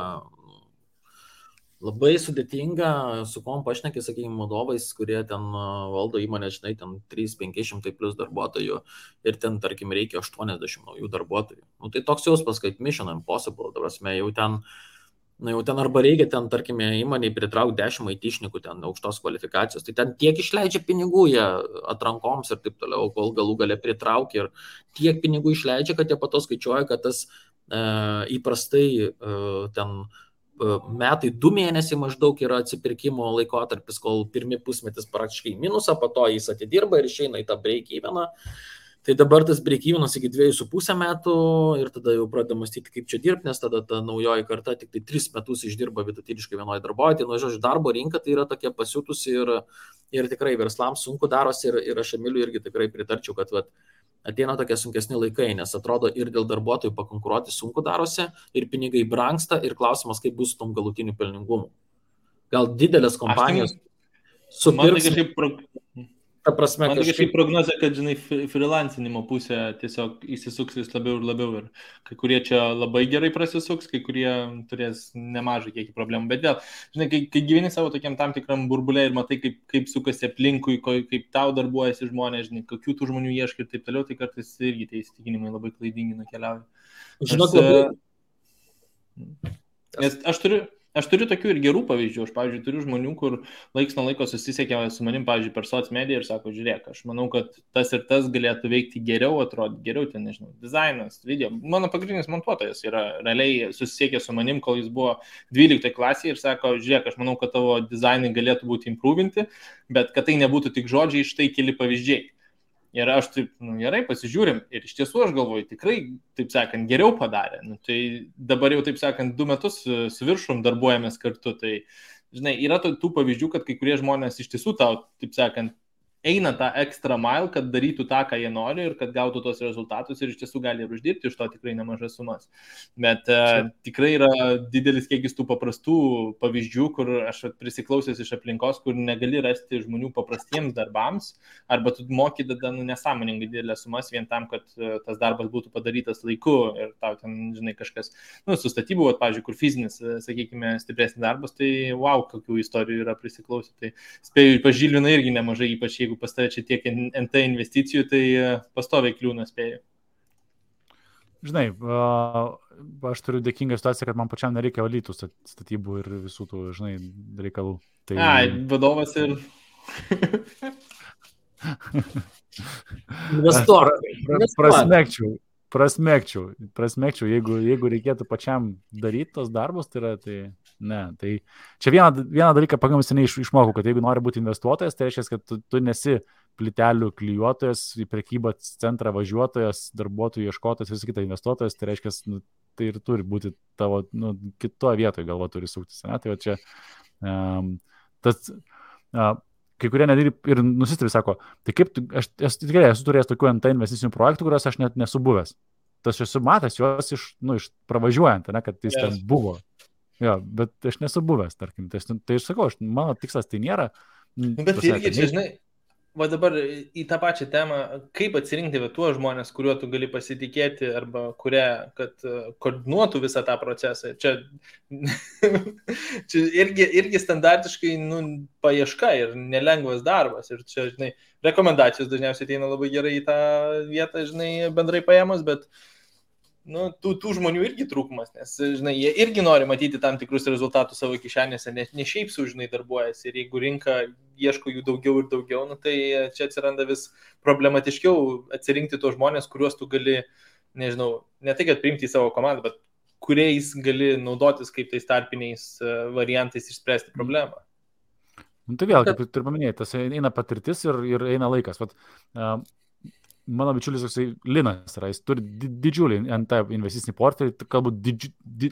labai sudėtinga, su kuom pašneki, sakykime, vadovais, kurie ten valdo įmonę, žinai, ten 300-500 plus darbuotojų ir ten, tarkim, reikia 80 naujų darbuotojų. Tai toks jausmas, kad Mission Impossible, jau ten arba reikia ten, tarkime, įmonėje pritraukti 10 IT-šnikų ten aukštos kvalifikacijos, tai ten tiek išleidžia pinigų jie atrankoms ir taip toliau, kol galų gale pritraukia ir tiek pinigų išleidžia, kad jie pato skaičiuoja, kad tas įprastai ten metai 2 mėnesiai maždaug yra atsipirkimo laikotarpis, kol pirmi pusmetis praktiškai minusą, po to jis atidirba ir išeina į tą break-eveną. Tai dabar tas break-evenas iki 2,5 metų ir tada jau pradeda mąstyti, kaip čia dirbti, nes tada ta naujoji karta tik tai 3 metus išdirba vidutiniškai vienoje darbovietėje. Žodžiu, darbo rinka tai yra tokia pasiutusi ir tikrai verslams sunku darosi ir aš Emiliui irgi tikrai pritarčiau, kad ateina tokie sunkesni laikai, nes atrodo ir dėl darbuotojų pakonkuruoti sunku darosi, ir pinigai brangsta, ir klausimas, kaip bus su tom galutiniu pelningumu. Gal didelės kompanijos supirks... Ta prasme, man kažkaip prognozė, kad, žinai, freelancinimo pusė tiesiog įsisuks vis labiau ir labiau ir kai kurie čia labai gerai prasisuks, kai kurie turės nemažai kiekį problemų, bet vėl, žinai, kai gyveni savo tokiam tam tikram burbulė ir matai, kaip sukasi aplinkui, kaip tau darbuojasi žmonės, žinai, kokių tų žmonių ieškai ir taip toliau, tai kartais irgi tie įsitikinimai labai klaidingi nukeliauja. Žinok, labai... Nes aš turiu tokių ir gerų pavyzdžių. Aš, pavyzdžiui, turiu žmonių, kur laiks nuo laiko susisiekia su manim, pavyzdžiui, per soc mediją ir sako, žiūrėk, aš manau, kad tas ir tas galėtų veikti geriau, atrodyti geriau, ten, nežinau, dizainas, video. Mano pagrindinis montuotojas yra realiai susisiekė su manim, kol jis buvo 12 klasėje ir sako, žiūrėk, aš manau, kad tavo dizainai galėtų būti improvinti, bet kad tai nebūtų tik žodžiai, štai keli pavyzdžiai. Ir aš taip, gerai, pasižiūrim. Ir iš tiesų aš galvoju, tikrai, taip sakant, geriau padarė. Tai dabar jau, taip sakant, 2 metus su viršum darbuojamės kartu. Tai, žinai, yra tų pavyzdžių, kad kai kurie žmonės iš tiesų tau, taip sakant, eina tą extra mile, kad darytų tą, ką jie nori ir kad gautų tos rezultatus ir iš tiesų gali ir uždirbti iš to tikrai nemažas sumas. Bet tikrai yra didelis kiekis tų paprastų pavyzdžių, kur aš prisiklausęs iš aplinkos, kur negali rasti žmonių paprastiems darbams, arba tu moki tada nesąmoningai didelės sumas vien tam, kad tas darbas būtų padarytas laiku ir tau ten, žinai, kažkas, su statybų, pavyzdžiui, kur fizinis, sakykime, stipresnis darbas, tai wow, kokių istorijų yra prisiklausę. Tai spėju, pažilvina irgi nemažai, ypač jeigu pas tave čia tiek NT investicijų, tai pastoviai kliūna spėjau. žinai, aš turiu dėkingą situaciją, kad man pačiam nereikia valyti statybų ir visų tų, žinai, reikalų. Tai... vadovas ir... Investuok. Prasmekčiau, jeigu reikėtų pačiam daryti tos darbus, tai ne. Tai čia vieną dalyką pakankamai seniai išmokau, kad jeigu nori būti investuotojas, tai reiškia, kad tu nesi plytelių klijuotojas, į prekybos centrą važiuotojas, darbuotojų ieškotojas, visą kitą investuotojas, tai reiškia, tai ir turi būti tavo, kitoje vietoje galva turi suktis. Ne? Tai va čia kai kurie nedėlį ir nusistebi, sako, tai kaip aš tikrai esu turėjęs tokių NT investicinių projektų, kuriuos aš net nesu buvęs. Tas esu matęs juos iš pravažiuojant, ne, kad jis ten buvo. Jo, bet aš nesu buvęs, tarkim. Tai aš sakau, mano tikslas tai nėra. Bet irgi čia, žinai, va dabar į tą pačią temą, kaip atsirinkti tuos žmonės, kuriuo tu gali pasitikėti arba kad koordinuotų visą tą procesą. Čia irgi standartiškai paieška ir nelengvas darbas. Ir čia, žinai, rekomendacijos dažniausiai ateina labai gerai į tą vietą, žinai, bendrai paėmus, bet tų žmonių irgi trūkumas, nes, žinai, jie irgi nori matyti tam tikrus rezultatus savo kišenėse, ne šiaip sau, žinai, darbuojasi. Ir jeigu rinka ieško jų daugiau ir daugiau, tai čia atsiranda vis problematiškiau atsirinkti tos žmonės, kuriuos tu gali, nežinau, ne tai, kad priimti į savo komandą, bet kuriais gali naudotis kaip tais tarpiniais variantais išspręsti problemą. Tai vėl, kaip ir paminėjai, tas eina patirtis ir eina laikas. Vat, mano bičiulis Linas yra, jis turi didžiulį NT investicinį portfelį, galbūt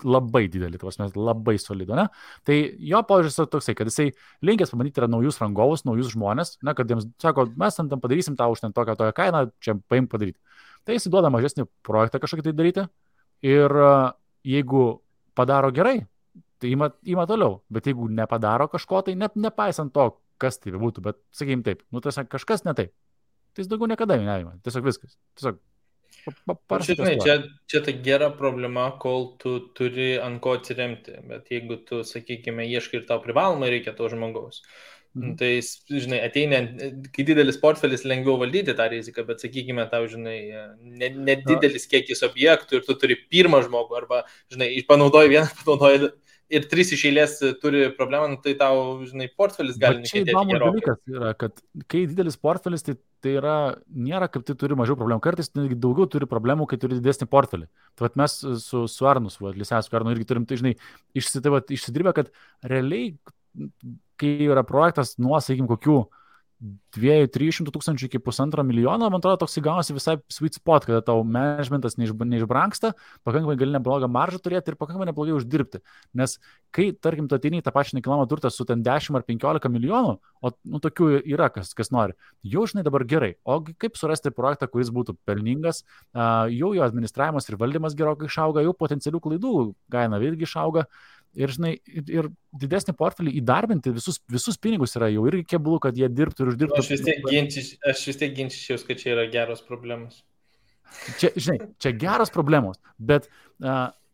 labai didelį, labai solido, ne? Tai jo požiūris yra toksai, kad jisai linkęs pabandyti yra naujus rangovus, naujus žmonės, ne, kad jiems sako, mes tam padarysim tą už ten tokią kainą, čia paim padaryti. Tai jisai duoda mažesnį projektą kažkokį tai daryti ir jeigu padaro gerai, tai ima toliau, bet jeigu nepadaro kažko, tai nepaisant to, kas tai būtų, bet sakykim taip, tai kažkas ne taip. Tai jis daugiau niekada neįma. Tiesiog viskas. Tiesiog Žinai, čia ta gera problema, kol tu turi ant ko atsiremti. Bet jeigu tu, sakykime, ieškai ir tau privalomai reikia to žmogaus, tai, žinai, ateina, kai didelis portfelis lengviau valdyti tą riziką, bet, sakykime, tau, žinai, nedidelis kiekis objektų ir tu turi pirmą žmogų arba, žinai, panaudoji vieną, panaudoji ir 3 iš eilės turi problemą, tai tau, žinai, portfelis gali nekentėti gerokai. Čia įdomus dalykas yra, kad kai didelis portfelis, tai yra, nėra kaip tai turi mažiau problemų. Kartais daugiau turi problemų, kai turi didesnį portfelį. Tai vat mes su Arnus, Lisesku Arnu irgi turim, tai, žinai, išsidirbę, kad realiai, kai yra projektas nuo, sakykim, kokių 200-300 tūkstančių iki 1,5 milijono, man atrodo, toks įgaunasi visai sweet spot, kada tau managementas neišbranksta, pakankamai gali neblogą maržą turėti ir pakankamai neblogai uždirbti. Nes kai, tarkim, tu ateini į tą pačią nekilnojamą turtą su ten 10 ar 15 milijonų, o tokių yra, kas nori, jau, žinai, dabar gerai. O kaip surasti projektą, kuris būtų pelningas, jau jo administravimas ir valdymas gerokai išauga, jau potencialių klaidų kaina irgi išauga. Ir, žinai, ir didesnį portfelį įdarbinti visus pinigus yra jau irgi keblu, kad jie dirbtų ir uždirbtų. Aš vis tiek ginčičiaus, kad čia yra geros problemos. Čia, žinai, čia geros problemos, bet,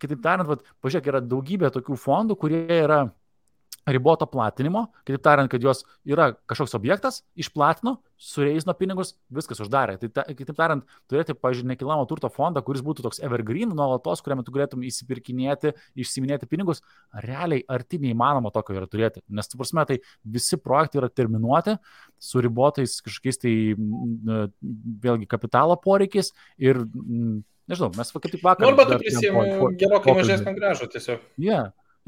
kitaip tariant, pažiūrėk, yra daugybė tokių fondų, kurie yra riboto platinimo, kitaip tariant, kad jos yra kažkoks objektas, išplatino, sureizino pinigus, viskas uždarė. Tai kitaip tariant, turėti, pažiūrėjau, nekilnojamo turto fondą, kuris būtų toks evergreen, nuolatos, kuriame tu galėtum įsipirkinėti, išsiminėti pinigus, realiai arti neįmanoma tokio yra turėti. Nes, tu prasme, tai visi projektai yra terminuoti, su ribotais kažkokiais tai, vėlgi, kapitalo poreikiais ir, nežinau, mes kaip tik vakar... Arba tu prisijėmė gerokai mažesnį grąžą tiesiog.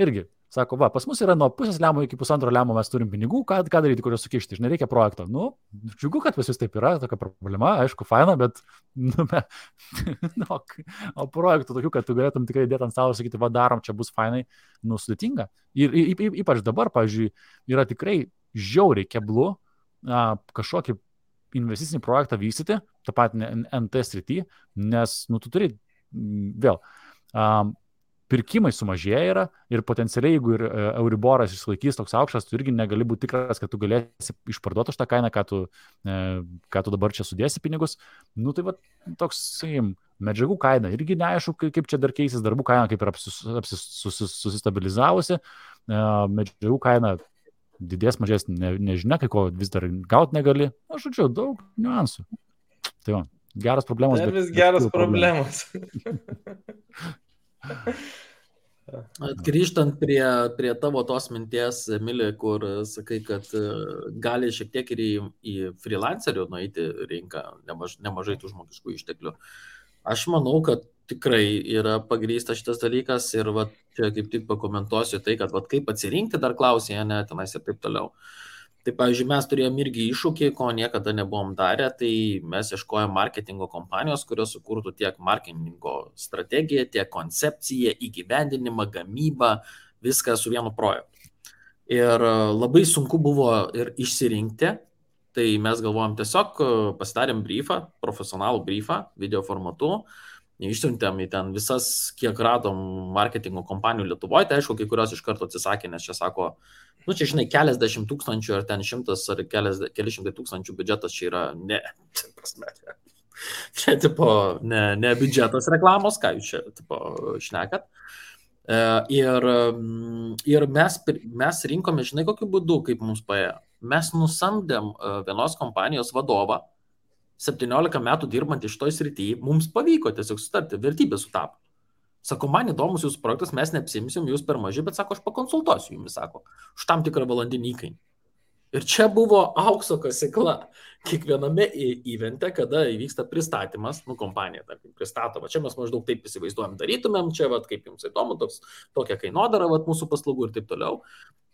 Irgi. Sako, pas mus yra nuo pusės lemo iki 1,5 lemo mes turim pinigų, ką daryti, kurios sukišti, žinai, reikia projekto. Džiugu, kad pas jūs taip yra, tokia problema, aišku, faina, bet, o projektų tokių, kad tu galėtum tikrai dėti ant stalo ir sakyti, darom, čia bus fainai, sudėtinga. Ir ypač dabar, pavyzdžiui, yra tikrai žiauriai keblu kažkokį investicinį projektą vystyti, tą patį NT srity, nes, tu turi vėl... pirkimai sumažėja yra ir potencialiai, jeigu ir Euriboras išsilaikys toks aukštas, tu irgi negali būti tikras, kad tu galėsi išparduoti už tą kainą, ką tu dabar čia sudėsi pinigus. Tai va, toks, sakykim, medžiagų kaina irgi neaišku, kaip čia dar keisis, darbų kaina kaip ir susistabilizavusi, medžiagų kaina didės, mažės, nežinia, kai ko vis dar gauti negali. Žodžiu, daug niuansų. Tai va. Geras problemos. Dar vis geras problemos. Grįžtant prie tavo tos minties, Emilė, kur sakai, kad gali šiek tiek ir į freelancerių nueiti rinką nemažai tų žmogiškų išteklių. Aš manau, kad tikrai yra pagrįsta šitas dalykas ir va, čia kaip tik pakomentuosiu tai, kad va, kaip atsirinkti dar klausė, ne, tenais ir taip toliau. Tai, pavyzdžiui, mes turėjom irgi iššūkį, ko niekada nebuvom darę, tai mes ieškojom marketingo kompanijos, kurios sukurtų tiek marketingo strategiją, tiek koncepciją, įgyvendinimą, gamybą, viską su vienu projektu. Ir labai sunku buvo ir išsirinkti, tai mes galvojom tiesiog pasidarėm briefą, profesionalų briefą, video formatu, išsiuntėm į ten visas, kiek radom marketingo kompanijų Lietuvoje, tai aišku, kai kurios iš karto atsisakė, nes čia sako, nu čia žinai, keliasdešimt tūkstančių ar ten 100 ar keli šimtai tūkstančių biudžetas čia yra čia tipo ne biudžetas reklamos, ką jūs čia tipo šnekat. Ir mes rinkome, žinai, kokiu būdu, kaip mums paėjo. Mes nusamdėm vienos kompanijos vadovą, 17 metų dirbant iš toj srityje, mums pavyko tiesiog sutarti, vertybės sutapo. Sako, man įdomus jūsų projektas, mes neapsimsim, jūs per maži, bet sako, aš pakonsultuosiu jumis, sako, už tam tikrą valandinį įkainį. Ir čia buvo aukso kasykla. Kiekviename evente, kada įvyksta pristatymas, kompanija, tarkim, pristatoma, čia mes maždaug taip įsivaizduojam, darytumėm, čia, vat, kaip jums įdomu, tokia kainodara, vat, mūsų paslaugų ir taip toliau.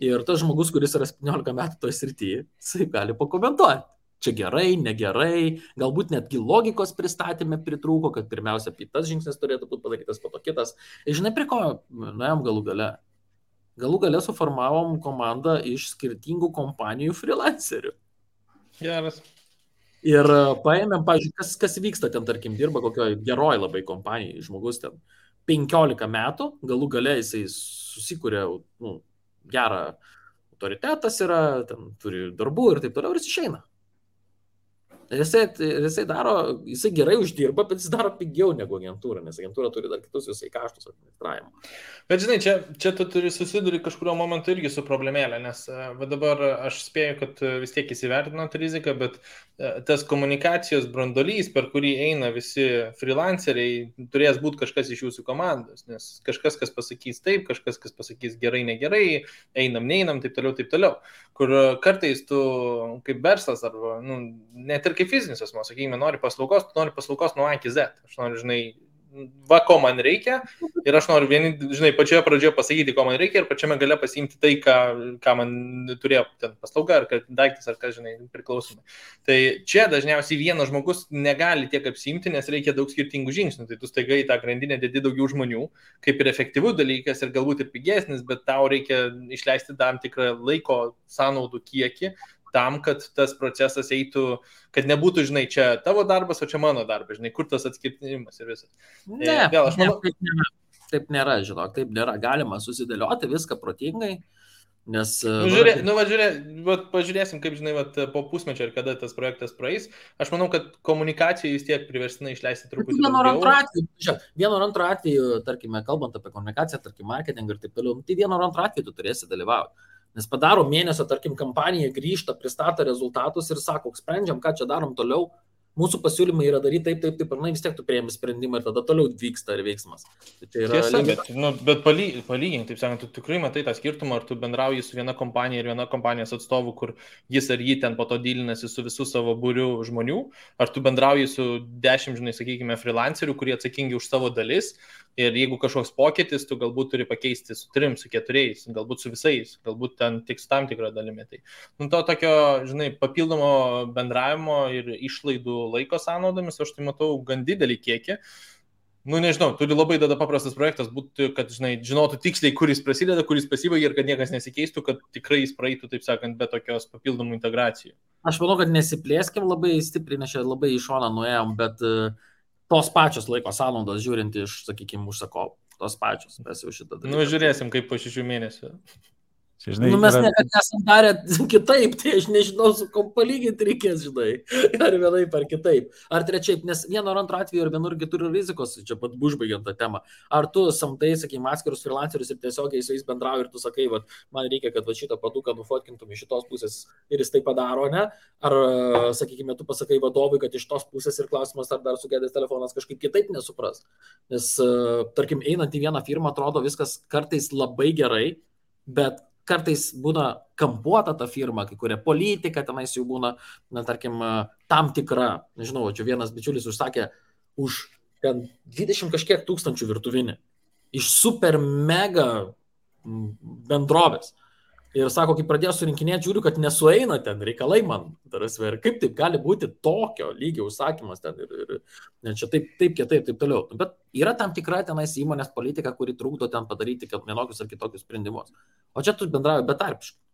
Ir tas žmogus, kuris yra 17 metų toje srityje, jisai gali pakomentuoti. Čia gerai, negerai, galbūt netgi logikos pristatymė pritrūko, kad pirmiausia, tas žingsnis turėtų būti padarytas, po to kitas. Ir žinai, prie ko nuėjom galų gale? Galų gale suformavom komandą iš skirtingų kompanijų freelancerių. Geras. Ir paėmėm, pavyzdžiui, kas vyksta ten, tarkim, dirba kokioje geroj labai kompanijai, žmogus ten 15 metų, galų gale jisai susikūrė gerą autoritetas yra, ten turi darbų ir taip toliau, ir jis išeina. Ir jisai daro, jisai gerai uždirba, bet jis daro pigiau negu agentūra, nes agentūra turi dar kitus visai kaštus administravimo. Bet žinai, čia tu turi susiduri kažkurio momentu irgi su problemėlė, nes dabar aš spėju, kad vis tiek įsivertinot riziką, bet tas komunikacijos brandolys, per kurį eina visi freelanceriai, turės būti kažkas iš jūsų komandos, nes kažkas, kas pasakys taip, kažkas, kas pasakys gerai, negerai, einam, neinam, taip toliau, kur kartais tu kaip verslas arba, net ir kaip fizinis asmo, sakykime, nori paslaugos nuo A iki Z. Aš noriu, žinai, va, ko man reikia ir aš noriu žinai, pačioje pradžioje pasakyti, ko man reikia ir pačiame gale pasiimti tai, ką man turėjo ten paslauga, ar daiktas, ar kas, žinai, priklausomai. Tai čia dažniausiai vienas žmogus negali tiek apsiimti, nes reikia daug skirtingų žingsnių. Tai tu staiga į tą grandinę dedi daugiau žmonių, kaip ir efektyvus dalykas ir galbūt ir pigesnis, bet tau reikia išleisti tam tikrą laiko sąnaudų kiekį, tam, kad tas procesas eitų, kad nebūtų, žinai, čia tavo darbas, o čia mano darbas, žinai, kur tas atskirtimas ir visas. Aš manau, taip nėra, žinok, taip nėra. Galima susidėlioti viską protingai, nes... Pažiūrėsim, kaip, žinai, po pusmečio ir kada tas projektas praeis. Aš manau, kad komunikacijai vis tiek priverstinai išleisti truputį daugiau. Vieno ar antro atveju, tarkime, kalbant apie komunikaciją, tarkim, marketingą ir taip toliau, tai vieno ar antro atveju tu turėsi dalyvauti. Nes padaro mėnesio, tarkim, kampanija, grįžta, pristato rezultatus ir sako, sprendžiam, ką čia darom toliau. Mūsų pasiūlymai yra daryti taip, ir vis tiek tu priėmi sprendimą ir tada toliau vyksta ir veiksmas. Tai yra tiesa, bet palygink, taip sakant, tu tikrai matai tą skirtumą, ar tu bendrauji su viena kompanija ir viena kompanijos atstovu, kur jis ar jį ten po to dylinasi su visų savo būriu žmonių, ar tu bendrauji su 10, žinai, sakykime, freelancerių, kurie atsakingi už savo dalis. Ir jeigu kažkoks pokytis, tu galbūt turi pakeisti su 3, su 4, galbūt su visais, galbūt ten tik su tam tikrą dalimi. Tai, to tokio, žinai, papildomo bendravimo ir išlaidų laiko sąnaudomis, aš tai matau gan didelį kiekį. Nežinau, turi labai tada paprastas projektas būti, kad, žinai, žinotų tiksliai, kuris prasideda, kuris pasibaigia ir kad niekas nesikeistų, kad tikrai jis praeitų, taip sakant, be tokios papildomų integracijų. Aš manau, kad nesiplėskim labai stipriai, nes čia labai į šoną nuėjom, bet... tos pačios laiko sąnaudos žiūrint iš, sakykime, užsakovų. Tos pačios, mes jau šitą dalyką. Žiūrėsim, kaip po 6 mėnesių. Čia, žinai, Mes niekada nesam darę kitaip, tai aš nežinau, su kom palyginti reikės, žinai. Ar vienaip, ar kitaip. Ar trečiaip, nes vieno ar antro atveju, ar vienur turi rizikos, čia pat užbaigiant tą temą. Ar tu samtai, sakykime, atskirus freelancerius ir tiesiogiai su jais bendrauji ir tu sakai, va, man reikia, kad va, šitą paduką nufotkintum iš šitos pusės ir jis tai padaro, ne? Ar, sakykime, tu pasakai vadovui, kad iš tos pusės ir klausimas, ar dar sugedęs telefonas kažkaip kitaip nesupras. Nes, tarkim, einant į vieną firmą, atrodo viskas kartais labai gerai, bet kartais būna kampuota ta firma, kai kuria politika, tenais jau būna, na, tarkim, tam tikra, nežinau, čia vienas bičiulis užsakė už ten 20 kažkiek tūkstančių virtuvinį iš super mega bendrovės. Ir sako, kai pradėjo surinkinėti, žiūriu, kad nesueina ten reikalai man. Ir kaip taip gali būti tokio lygio užsakymas ten ir čia taip kitaip, taip toliau. Bet yra tam tikra tenais įmonės politika, kuri trukdo ten padaryti vienokius ar kitokius sprendimus. O čia tu bendrauji betarpiškai.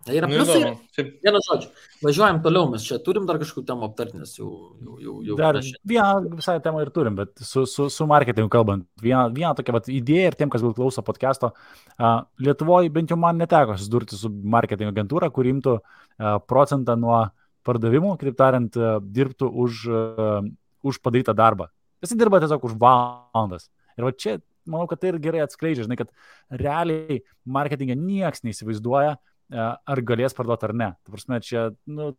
Tai yra pliusai. Vieną žodžiu. Važiuojam toliau, mes čia turim dar kažkokių temų aptarti, nes jau dar vieną visai temą ir turim, bet su marketingu kalbant. Vieną tokią idėją ir tiem, kas klauso podcast'o, Lietuvoje bent jau man neteko susidurti su marketingo agentūra, kur imtų procentą nuo pardavimų, kitaip tariant, dirbtų už padarytą darbą. Visi dirba tiesiog už valandas. Ir va čia, manau, kad tai ir gerai atskleidžia, žinai, kad realiai marketingą nieks neįsivaizduoja, ar galės parduoti ar ne. Ta prasme, čia, nu,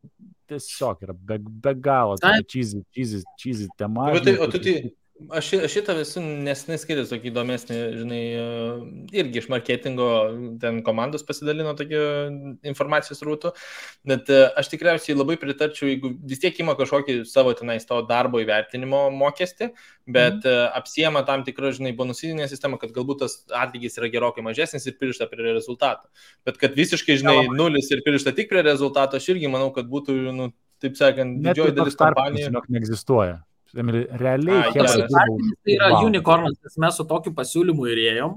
tiesiog yra be galo cheesy tema. Aš šitą visų nesnai skaitęs tokį įdomesnį, žinai, irgi iš marketingo ten komandos pasidalino tokio informacijos rūtų, bet aš tikriausiai labai pritarčiau, jeigu vis tiek ima kažkokį savo tenais to darbo įvertinimo mokestį, bet apsiema tam tikrą, žinai, bonusinę sistemą, kad galbūt tas atlygis yra gerokai mažesnis ir pririšta prie rezultato. Bet kad visiškai, žinai, nulis ir pririšta tik prie rezultato, aš irgi manau, kad būtų, nu, taip sakant, didžioji dalis kompanijų. Net neegzistuoja. Realiai, tai yra unicornas, nes mes su tokiu pasiūlymu ir ėjom.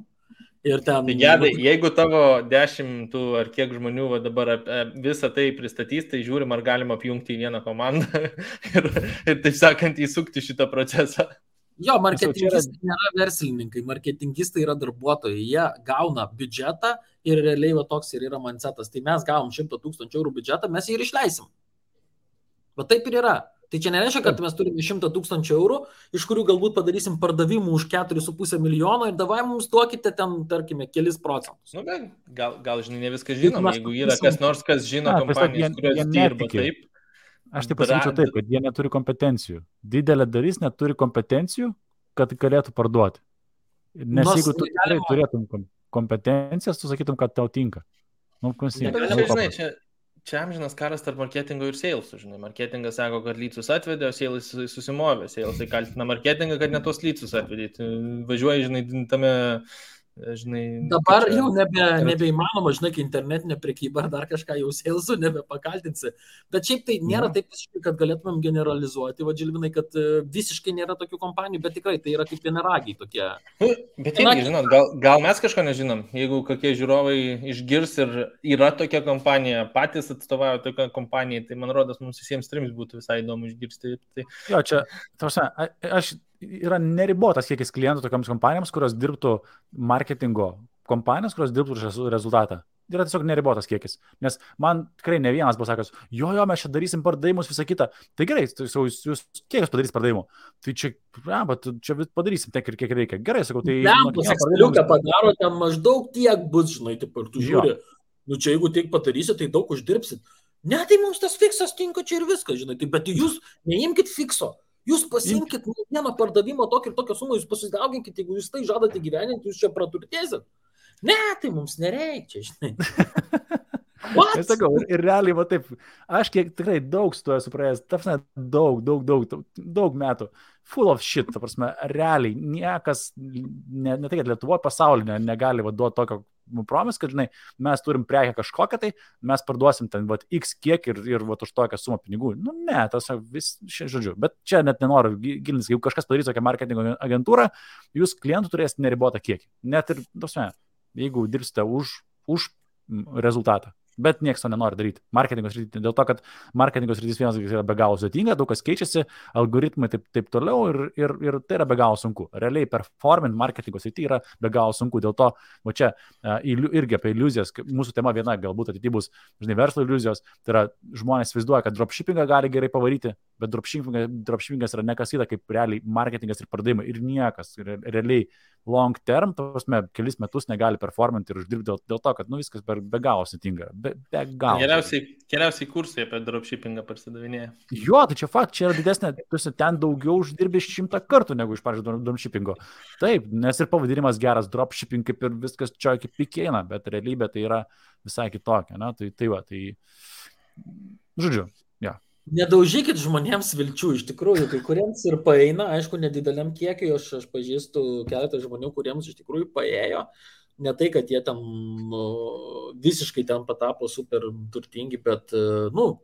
Ir ten... Tai gedai, jeigu tavo 10 ar kiek žmonių va dabar visą tai pristatys, tai žiūrim, ar galima apjungti į vieną komandą ir taip sakant, įsukti šitą procesą. Jo, marketingistai nėra verslininkai, marketingistai yra darbuotojai, jie gauna biudžetą ir realiai va toks ir yra mindsetas. Tai mes gavom 100 000 eurų biudžetą, mes jį ir išleisim. Bet taip ir yra. Tai čia nereiškia, kad mes turime 100 000 eurų, iš kurių galbūt padarysim pardavimų už 4,5 milijono ir davai mums duokite ten, tarkime, kelis procentus. Nu, bet gal žinai, ne viską žinom, jeigu yra kas nors, kas žino kompanijas, kurios dirba taip. Aš taip pasakyčiau taip, kad jie neturi kompetencijų. Didelė dalis neturi kompetencijų, kad galėtų parduoti. Nes jeigu tu tikrai turėtum kompetencijas, tu sakytum, kad tau tinka. Nu, Čia amžinas karas tarp marketingo ir salesų, žinai. Marketingas sako, kad lycus atvedė, o salesai susimovė. Salesai kaltina marketingą, kad ne tos lycus atvedė. Važiuoji, žinai, tame, žinai... Dabar jau nebeįmanoma, žinai, kai internetinė prekyba ar dar kažką jau salesų nebepakaltinsi. Bet šiaip tai nėra taip visiškai, kad galėtumėm generalizuoti, va, Žilvinai, kad visiškai nėra tokių kompanijų, bet tikrai tai yra kaip vienaragiai tokie. Bet irgi, žinot, gal mes kažko nežinom, jeigu kokie žiūrovai išgirs ir yra tokia kompanija, patys atstovauja tokią kompaniją, tai man rodos, mums visiems trims būtų visai įdomu išgirsti. Tai... Jo, čia, yra neribotas kiekis klientų tokiams kompanijoms, kurios dirbtų marketingo kompanijos, kurios dirbtų rezultatą. Yra tiesiog neribotas kiekis. Nes man tikrai ne vienas buvo sakęs, jo, mes čia darysim pardavimus, visą kitą. Tai gerai, jūs kiek jūs padarys pardavimų? Tai čia padarysim tiek ir kiek reikia. Gerai, sakau, tai... Ekseliuką padaro, ten maždaug tiek bus, žinai, taip ir tu žiūri. Nu čia jeigu tiek padarysit, tai daug uždirbsit. Ne, tai mums tas fiksas tinka čia ir viskas, žinai. Tai, bet jūs neimkit fikso. Jūs pasimkit vieną pardavimo tokį ir tokią sumą, jūs pasidauginkit, jeigu jūs tai žadate gyveninti, jūs čia praturtėsit. Ne, tai mums nereikia, žinai. Aš sakau, ir realiai, va taip, aš kiek tikrai daug su to esu praėjęs, ta prasme, daug metų, full of shit, ta prasme, realiai, niekas, ne tai, kad Lietuvoje pasaulyje negali duoti tokio promis, kad, žinai, mes turim prekę kažkokią, tai mes parduosim ten, va, x kiek ir va, už tokią sumą pinigų. Nu, ne, tas vis, žodžiu, bet čia net nenoriu gilintis, jeigu kažkas padarys tokią marketingo agentūrą, jūs klientų turėsite neribotą kiekį. Net ir, ta prasme, jeigu dirbsite už rezultatą. Bet niekas to nenori daryti. Marketingo srityje, dėl to, kad marketingo srityje vienas yra be galo sudėtinga, daug kas keičiasi, algoritmai taip toliau ir tai yra be galo sunku. Realiai performant marketingo srityje yra be galo sunku. Dėl to, va čia irgi apie iliuzijas, mūsų tema viena galbūt ateityje bus, žinai, verslo iliuzijos, tai yra žmonės vaizduoja, kad dropshippingą gali gerai pavaryti, bet dropshippingas yra nekas kita kaip realiai marketingas ir pardavimai ir niekas. Realiai long term, prasme, kelis metus negali performanti ir uždirbti dėl to, kad viskas be galo sudėtinga. Be galo. Keliausiai kursai apie dropshippingą parsidavinėja. Jo, tai čia fakt, čia yra didesnė, ten daugiau uždirbi 100 kartų negu iš pavyzdžiui dropshippingo. Taip, nes ir pavadinimas geras, dropshipping kaip ir viskas čia kaip pikėina, bet realybė tai yra visai kitokia. Na? Žodžiu, ja. Nedaužykit žmonėms vilčių, iš tikrųjų, kai kuriems ir paeina, aišku, nedideliam kiekiui, aš pažįstu keletą žmonių, kuriems iš tikrųjų paėjo, ne tai, kad jie ten visiškai ten patapo super turtingi, bet,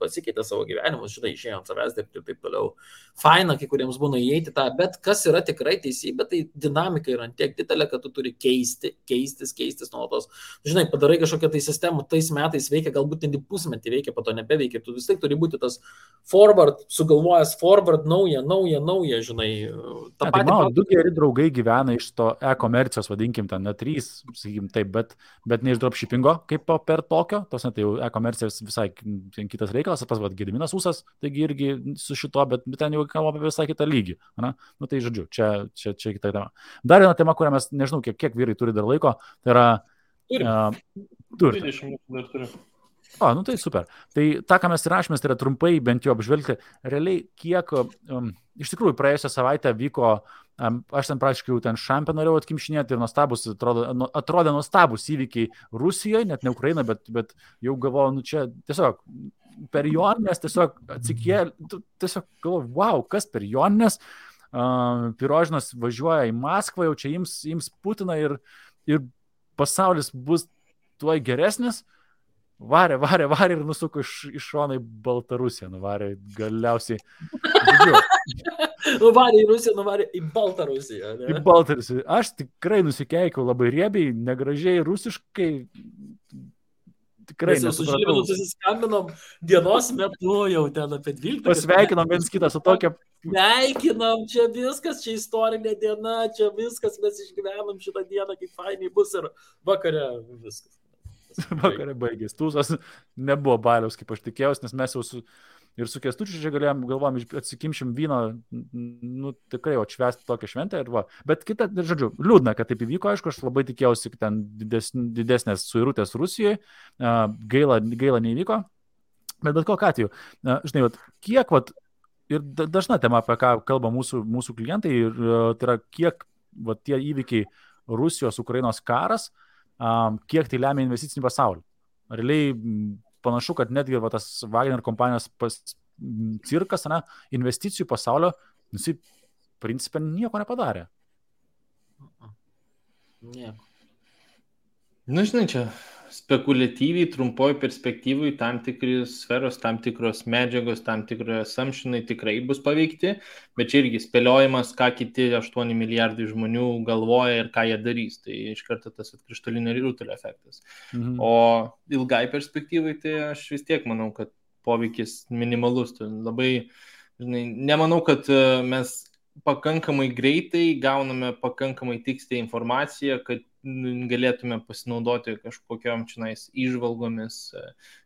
pasikeitė savo gyvenimus, žinai, išėjo ant savęs dirbti ir taip toliau. Faina, kai kuriems būna įeiti tą, bet kas yra tikrai teisybė, tai dinamika yra tiek didelė, kad tu turi keistis nuolatos. Žinai, padarai kažkokią tai sistemą, tais metais veikia, galbūt net pusmetį veikia, po to nebeveikia, tu vis tiek turi būti tas forward, sugalvojęs forward, nauja, žinai. Mano du geri draugai gyvena iš to e-komercijos, vadinkim, ten ne 3, sakykim taip, bet ne iš dropshippingo, kaip per tokio, tos tai jau e-komercija visai kitas reikalas, pas Gediminas Ūsas, taigi irgi su šito, bet ten jau kalbame apie visai kitą lygį. Na? Tai žodžiu, čia kita tema. Dar viena tema, kurią mes, nežinau, kiek vyrai turi dar laiko, tai yra... Turi. 20 minutų dar turiu. Tai super. Tai tą, ką mes įrašėmės, tai yra trumpai bent jau apžvelgti. Realiai, kiek iš tikrųjų praėjusią savaitę vyko, aš ten praktiškai jau ten šampę norėjau atkimšinėti ir atrodė nuostabus įvykiai Rusijoje, net ne Ukraina, bet jau galvoju, čia tiesiog per Joninės tiesiog atsikėlė, tiesiog galvoju, wow, kas per Joninės, Pirožinas važiuoja į Maskvą, jau čia ims Putiną ir pasaulis bus tuoj geresnis. Varė ir nusuko iš šono į Baltarusiją, nuvarė galiausiai. Nuvarė į Rusiją, nuvarė į Baltarusiją. Ne? Į Baltarusiją. Aš tikrai nusikeikiau labai riebiai, negražiai, rusiškai. Tikrai nesupratau. Mes jau su Žilvinu susiskambinom dienos metu jau ten apie 12. Pasveikinom viens kitą su tokia... Sveikinam, čia viskas, čia istorinė diena, čia viskas, mes išgyvenam šitą dieną, kaip fainiai bus ir vakare viskas. Vakarė baigės. Tūsas nebuvo baliaus, kaip aš tikėjausi, nes mes jau su Kęstučiu čia galvojom, atsikimšim vyno, tikrai atšvęsti tokią šventę. Bet kita, žodžiu, liūdna, kad taip įvyko, aišku, aš labai tikėjausi, kad ten didesnės suirutės Rusijoje, gaila neįvyko, bet kokiu atveju, žinai, kiek, ir dažna tema, apie ką kalba mūsų klientai, tai yra kiek tie įvykiai Rusijos, Ukrainos karas, kiek tai lemia investicinį pasaulį. Realiai panašu, kad netgi tas Wagner kompanijos cirkas, investicijų pasaulio, principė nieko nepadarė. Nieko. Žinai, čia spekuliatyviai, trumpoj perspektyvai tam tikros sferos, tam tikros medžiagos, tam tikros assumptionai tikrai bus paveikti, bet čia irgi spėliojimas, ką kiti 8 milijardai žmonių galvoja ir ką jie darys. Tai iš karto tas krištolinio rutulio efektas. O ilgai perspektyvai, tai aš vis tiek manau, kad poveikis minimalus. Tai labai, žinai, nemanau, kad mes pakankamai greitai gauname pakankamai tikslę informaciją, kad galėtume pasinaudoti kažkokiom čionais įžvalgomis.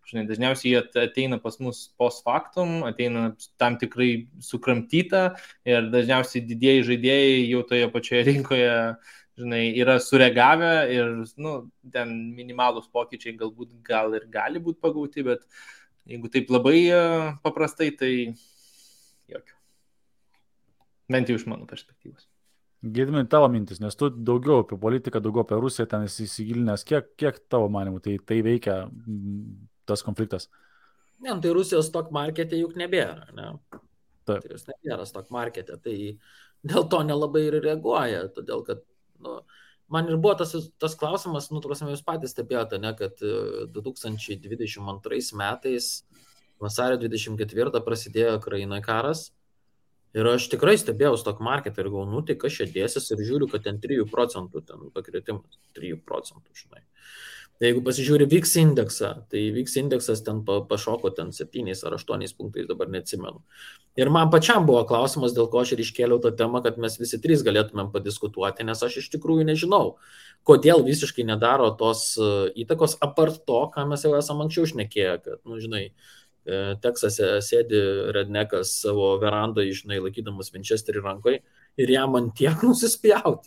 Žinai, dažniausiai jie ateina pas mus post factum, ateina tam tikrai sukramtyta ir dažniausiai didieji žaidėjai jau toje pačioje rinkoje, žinai, yra sureagavę ir, ten minimalūs pokyčiai galbūt gal ir gali būti pagauti, bet jeigu taip labai paprastai, tai jokio. Bent jau iš mano perspektyvos. Gedimai, tavo mintis, nes tu daugiau apie politiką, daugiau apie Rusiją ten įsigilinęs, kiek tavo manimų tai veikia tas konfliktas? Ne, tai Rusijos stock markete juk nebėra, ne? Taip. Tai jos nebėra stock markete, tai dėl to nelabai ir reaguoja, todėl kad, man ir buvo tas klausimas, jūs patys stebėjote, ne, kad 2022 metais, vasario 24 prasidėjo Ukrainoje karas. Ir aš tikrai stebėjau stock market ir galvoju, tai kas čia dėsis ir žiūriu, kad ten 3% ten pakritimas, 3%, žinai. Jeigu pasižiūri VIX indeksą, tai VIX indeksas ten pašoko ten 7 ar 8 punktais, dabar neatsimenu. Ir man pačiam buvo klausimas, dėl ko aš ir iškėliau tą temą, kad mes visi trys galėtumėm padiskutuoti, nes aš iš tikrųjų nežinau, kodėl visiškai nedaro tos įtakos, apart to, ką mes jau esam anksčiau šnekėję, kad, nu, žinai, Teksase sėdi rednekas savo verandoje, žinai, laikydamas Winchesterį rankoje ir jam ant tiek nusispjauti.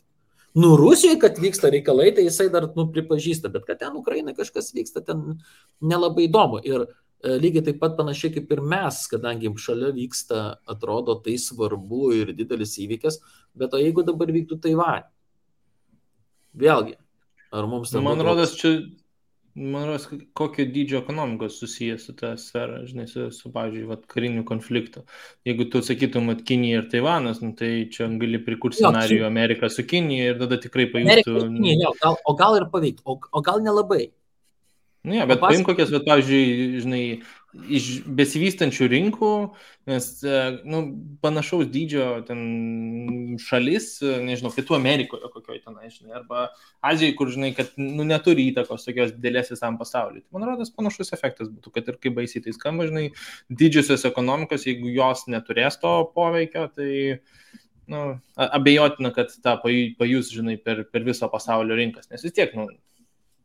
Nu, Rusijoje, kad vyksta reikalai, tai jisai dar, nu, pripažįsta, bet kad ten Ukrainai kažkas vyksta, ten nelabai įdomu. Ir lygiai taip pat panašiai kaip ir mes, kadangi šalia vyksta, atrodo, tai svarbu ir didelis įvykis, bet o jeigu dabar vyktų Taivanė? Vėlgi, ar mums tai Man rodos, kokio dydžio ekonomikos susijęs su tą sferą, žinai, su pavyzdžiui, kariniu konfliktu. Jeigu tu sakytum, kad Kinija ir Taivanas, nu, tai čia gali prikurti scenarijų Ameriką su Kinija ir tada tikrai pajustų... O gal ir pavyktų, o gal nelabai. Ne, bet paim kokias, pavyzdžiui, žinai, iš besivystančių rinkų, nes, nu, panašaus dydžio ten šalis, nežinau, Pietų Amerikoje kokioj tenai, žinai, arba Azijoje, kur, žinai, kad, nu, neturi įtakos tokios didelės visam pasauliui. Man rodos, panašus efektas būtų, kad ir kaip baisiai tai skamba, žinai, didžiosios ekonomikos, jeigu jos neturės to poveikio, tai, nu, abejotina, kad tą pajus, žinai, per viso pasaulio rinkas, nes vis tiek, nu,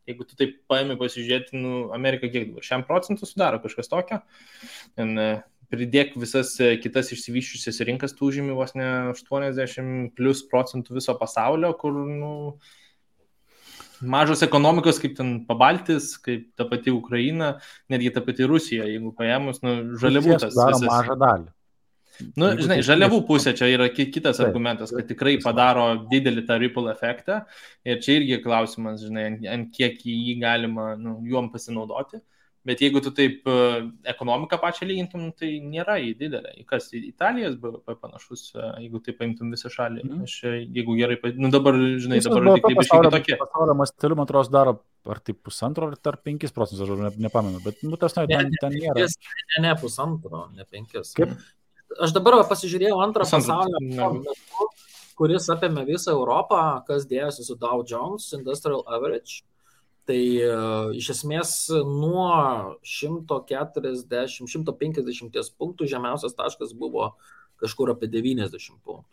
jeigu tu taip paimi pasižiūrėti, nu, Amerika kiek dabar, 100% sudaro kažkas tokio, pridėk visas kitas išsivyščiusias rinkas, tu užimi vos ne 80+ % viso pasaulio, kur, nu, mažos ekonomikos, kaip ten Pabaltis, kaip ta pati Ukraina, netgi ta pati Rusija, jeigu paėmus, nu, žaliavų tas visas. Mažą dalį. Nu, žinai, žaliavų pusė čia yra kitas argumentas, kad tikrai padaro didelį tą ripple efektą ir čia irgi klausimas, žinai, ant kiek jį galima, nu, juom pasinaudoti, bet jeigu tu taip ekonomiką pačią lygintum, tai nėra jį didelė. Kas, Italijos BVP panašus, jeigu taip paimtum visą šalį, aš, jeigu gerai, nu dabar, žinai, dabar tik taip iškiai tokie. Pasaulio masteliu, man atrodo, daro ar tai 1,5 ar 5%, aš nepamenu, bet, nu, tas ten nėra. Ne 1,5, ne 5. Kaip? Aš dabar pasižiūrėjau antrą pasaulio, kuris apėmė visą Europą, kas dėjosi su Dow Jones Industrial Average. Tai iš esmės nuo 140-150 punktų žemiausias taškas buvo kažkur apie 90 punktų.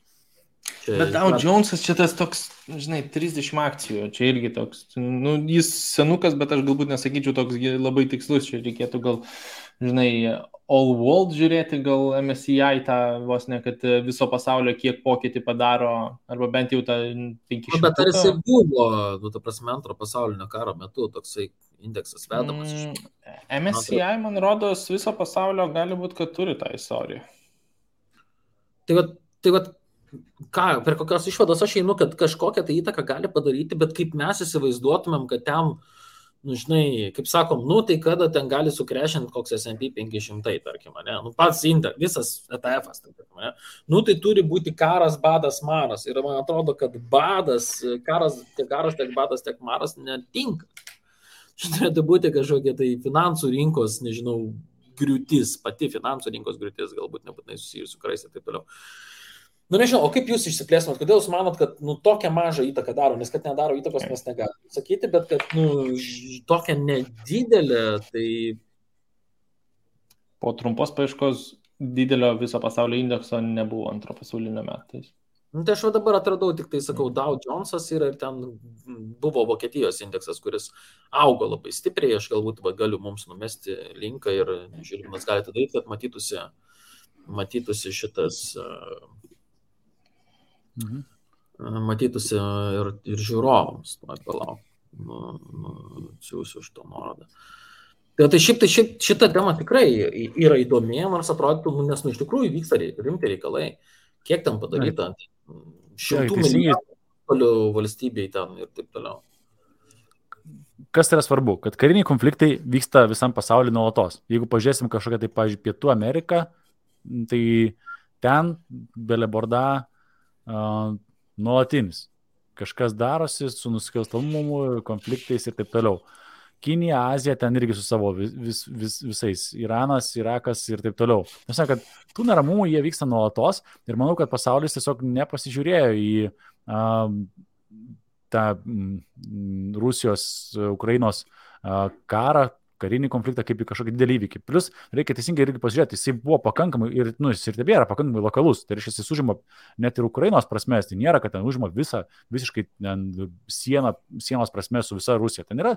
Bet Dow Jonesas čia tas toks, žinai, 30 akcijų, čia irgi toks, nu, jis senukas, bet aš galbūt nesakyčiau toks labai tikslus, čia reikėtų gal, žinai, All World žiūrėti, gal MSCI tą vos ne, kad viso pasaulio kiek pokytį padaro, arba bent jau tą 500. Bet ar jisai buvo, nu, ta prasme, antro pasaulinio karo metu toksai indeksas vedamas? MSCI, man rodos, viso pasaulio gali būti, kad turi tą istoriją. Tai vat, ką, per kokios išvados aš einu, kad kažkokią tai įtaką gali padaryti, bet kaip mes įsivaizduotumėm, kad ten, nu, žinai, kaip sakom, nu, tai kada ten gali sukrešinti koks S&P 500, tarkim, ne? Nu, pats visas ETF-as, tarkim, ne? Nu, tai turi būti karas, badas, maras. Ir man atrodo, kad karas, tiek badas, tiek maras netinka. Šitai turėtų būti kažkokia tai finansų rinkos, nežinau, griūtis, pati finansų rinkos griūtis, galbūt nebūtinai susijusi su karais ir taip toliau. Nu, nežinau, o kaip jūs išsiplėstumėt, kodėl jūs manot, kad, nu, tokią mažą įtaką daro, nes kad nedaro įtakos mes negalime sakyti, bet kad, nu, tokia nedidelė, tai... Po trumpos paieškos didelio viso pasaulio indekso nebuvo antro pasaulinio metais. Nu, tai aš dabar atradau, tik tai sakau, Dow Jonesas yra ir ten buvo Vokietijos indeksas, kuris augo labai stipriai, aš galbūt galiu mums numesti linką ir žiūrėjimas galite daryti, kad matytųsi šitas... matytųsi ir žiūrovams, palauk, siūsiu už to nuorodą. Tai šita tema tikrai yra įdomi, nors atrodytų, nes iš tikrųjų vyksta rimti reikalai. Kiek ten padaryta? 100 milijardų valstybei ten ir taip toliau. Kas yra svarbu? Kad kariniai konfliktai vyksta visam pasauliu nuolatos. Jeigu pažiūrėsim kažkokią, tai, pavyzdžiui, Pietų Ameriką, tai ten beleborda nuolatinis. Kažkas darosi su nusikalstamumu, konfliktais ir taip toliau. Kinija, Azija, ten irgi su savo visais. Iranas, Irakas ir taip toliau. Nes, kad tų neramumų jie vyksta nuolatos ir manau, kad pasaulis tiesiog nepasižiūrėjo į tą Rusijos, Ukrainos karą, karinį konfliktą kaip į kažkokį didelį įvykį. Plus, reikia teisingai irgi pasižiūrėti, jisai buvo pakankamai, jis ir tebėra pakankamai lokalus. Tai reiškia, jis užima net ir Ukrainos prasmės, tai nėra, kad ten užima visiškai sienos prasmės su visa Rusija. Ten yra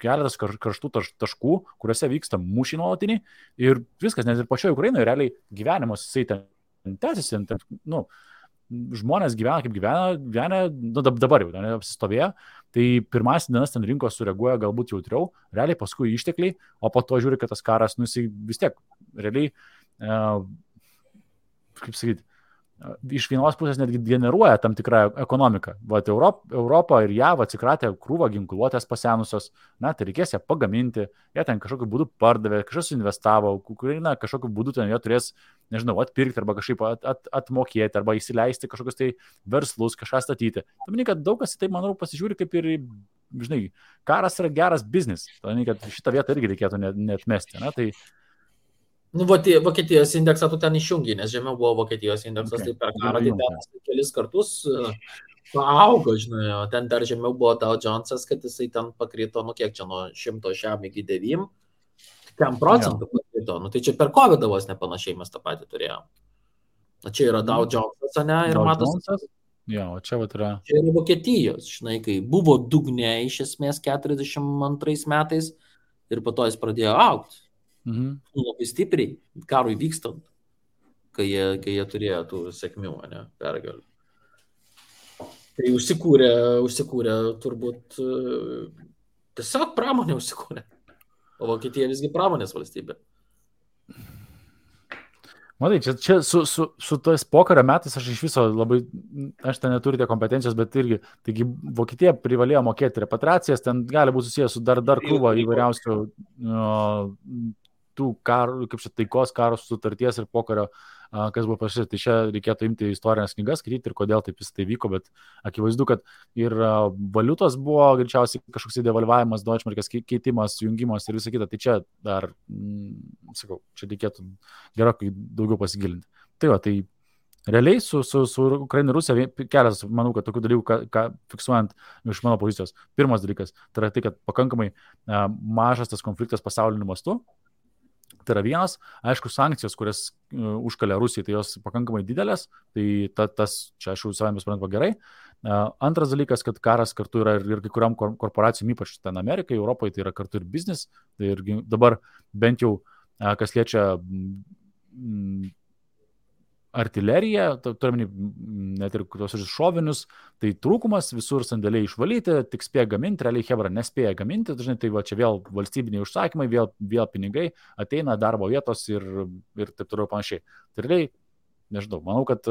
keletas karštų taškų, kuriuose vyksta mūšiai nuolatiniai ir viskas, net ir pačioje Ukrainoje realiai gyvenimas jisai ten tęsiasi, žmonės gyvena kaip gyvena, dabar jau apsistovėjo, tai pirmas dienas ten rinkos sureaguoja galbūt jautriau, realiai paskui ištekliai, o po to žiūri, kad tas karas, jisai vis tiek realiai, kaip sakyti, iš vienos pusės netgi generuoja tam tikrą ekonomiką. Vat Europa ir JAV atsikratė krūvą ginkluotės pasenusios, tai reikės ją pagaminti, jie ten kažkokiu būdu pardavė, kažkas investavo, Ukraina kažkokiu būdu ten jie turės, nežinau, atpirkti arba kažkaip atmokėti arba įsileisti kažkokius tai verslus, kažką statyti. Tamini, kad daug kas į tai, manau, pasižiūri kaip ir, žinai, karas yra geras biznis. Tamini, kad šitą vietą irgi reikėtų neatmesti. Tai Vokietijos indeksą tu ten išjungi, nes žemiau buvo Vokietijos indeksas, tai per karą tai ten kelis kartus paaugo, žinai, o ten dar žemiau buvo Dow Jonesas, kad jisai ten pakrito, kiek čia nuo 100 šiam iki 9, 10% pakrito, tai čia per COVID vos nepanašiai mes tą patį turėjom. Čia yra Dow Jonesas, ne, ir matosi. Jo, o čia vat yra. Čia yra Vokietijos, žinai, kai buvo dugne iš esmės 42 metais ir po to jis pradėjo augti. Labai stipriai, karui vykstant, kai jie turėjo tų sėkmių, pergalių. Tai užsikūrė turbūt tiesiog pramonė užsikūrė. O Vokietija visgi pramonės valstybė. Matai, čia su tais pokario metais aš iš viso labai, aš ten neturite kompetencijos, bet irgi, taigi Vokietija privalėjo mokėti repatriacijas, ten gali būti susijęs su dar krūva įvairiausių tų karų, kaip čia taikos karos sutarties ir pokario, kas buvo pasirašyta. Tai čia reikėtų imti istorinės knygas, skaityti ir kodėl taip tai vyko, bet akivaizdu, kad ir valiutos buvo greičiausiai kažkoks devalvavimas, Deutschmarkės keitimas, jungimas ir visa kita. Tai čia dar, sakau, čia reikėtų gerokai daugiau pasigilinti. Tai realiai su Ukraina ir Rusija kelias, manau, kad tokių dalykų, ką fiksuojant iš mano pozicijos. Pirmas dalykas, tai yra tai, kad pakankamai mažas tas konfliktas pasauliniu mastu. Tai yra vienas, aišku, sankcijos, kurias užkalė Rusija, tai jos pakankamai didelės, tai tas čia aš jau savame suprantama gerai. Antras dalykas, kad karas kartu yra ir kai kuriam korporacijom, ypač ten Amerikai, Europoje, tai yra kartu ir biznis. Tai ir dabar bent jau, kas liečia artileriją, turime net ir tos šovinius, tai trūkumas, visur sandėliai išvalyti, tik spėja gaminti, realiai Hebra nespėja gaminti, dažnai tai čia vėl valstybiniai užsakymai, vėl pinigai, ateina darbo vietos ir taip toliau panašiai. Tai realiai, nežinau, manau, kad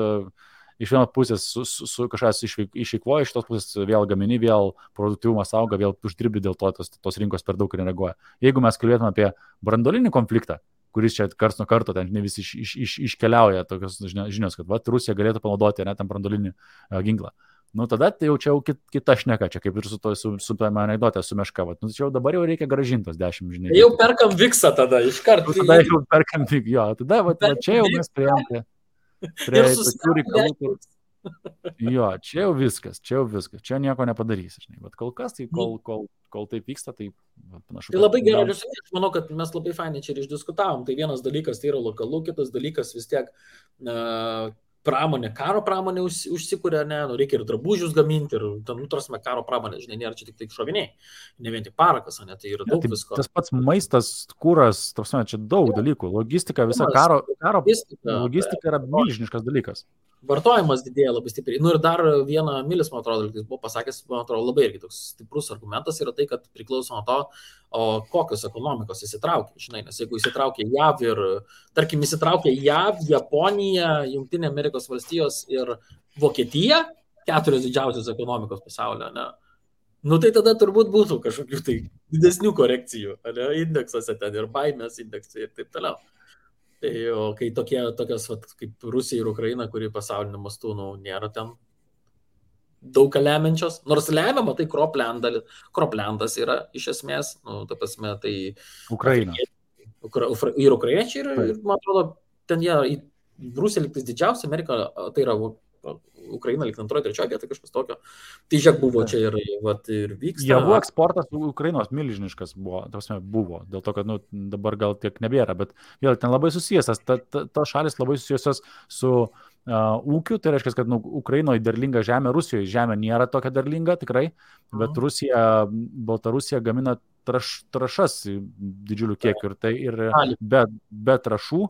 iš vienos pusės su kažkas išeikvoja, iš tos pusės vėl gamini, vėl produktyvumas auga, vėl uždirbi, dėl to tos rinkos per daug nereaguoja. Jeigu mes kalbėtume apie branduolinį konfliktą, kuris čia karts nuo karto, ten visi iškeliauja tokios žinios, kad Rusija galėtų panaudoti tam branduolinį ginklą. Tada tai jau čia kita šneka, čia kaip ir su tame anekdote, su Meška. Čia jau dabar jau reikia gražintos 10, žinai. Jau perkam viksą tada, iš karto. Tada jau perkam viksą, jo, tada čia jau mes priėjom prie tokių reikalų. Jo, čia jau viskas, čia nieko nepadarysi, žinai, bet kol kas, tai kol taip vyksta, tai panašu. Tai labai gerai, aš manau, kad mes labai fainai čia ir išdiskutavom, tai vienas dalykas tai yra lokalu, kitas dalykas vis tiek pramonė, karo pramonė užsikūrė, reikia ir drabužius gaminti, ir nutrasme karo pramonė, žinai, nėra čia tik šoviniai, ne vien tik parakas, tai yra daug visko. Tas pats maistas, kūras, čia daug dalykų, logistika, visa karo logistika yra milžiniškas dalykas. Vartojimas didėja labai stipriai. Ir dar vieną Milis, man atrodo, jis buvo pasakęs, man atrodo, labai irgi toks stiprus argumentas yra tai, kad priklauso nuo to, kokios ekonomikos įsitraukia. Žinai, nes jeigu įsitraukia JAV ir, tarkim, įsitraukia JAV, Japonija, Jungtinė Amerikos valstijos ir Vokietija, 4 didžiausios ekonomikos pasaulio, tai tada turbūt būtų kažkokių tai didesnių korekcijų, indeksuose ten ir baimės indeksai ir taip toliau. Tai kai tokios kaip Rusija ir Ukraina, kuri pasauliniu mastu nėra ten daug lemiančios, nors lemiama, tai Kroplendas yra iš esmės, ta prasme, tai Ukraina. Ir ukrainiečiai, ir man atrodo, ten jie, Rusija liktis didžiausia, Amerika, tai yra Ukraina lyg antroji, trečioji vieta, kažkas tokio. Tai žiūrėk buvo čia ir vyksta. Javų eksportas Ukrainos milžiniškas buvo, dėl to, kad dabar gal tiek nebėra, bet vėl ten labai susijęs, tos šalis labai susijusios su ūkiu, tai reiškia, kad Ukrainoje derlinga žemė, Rusijoje žemė nėra tokia derlinga tikrai, bet Baltarusija gamina trąšas didžiulių kiekių ir be trąšų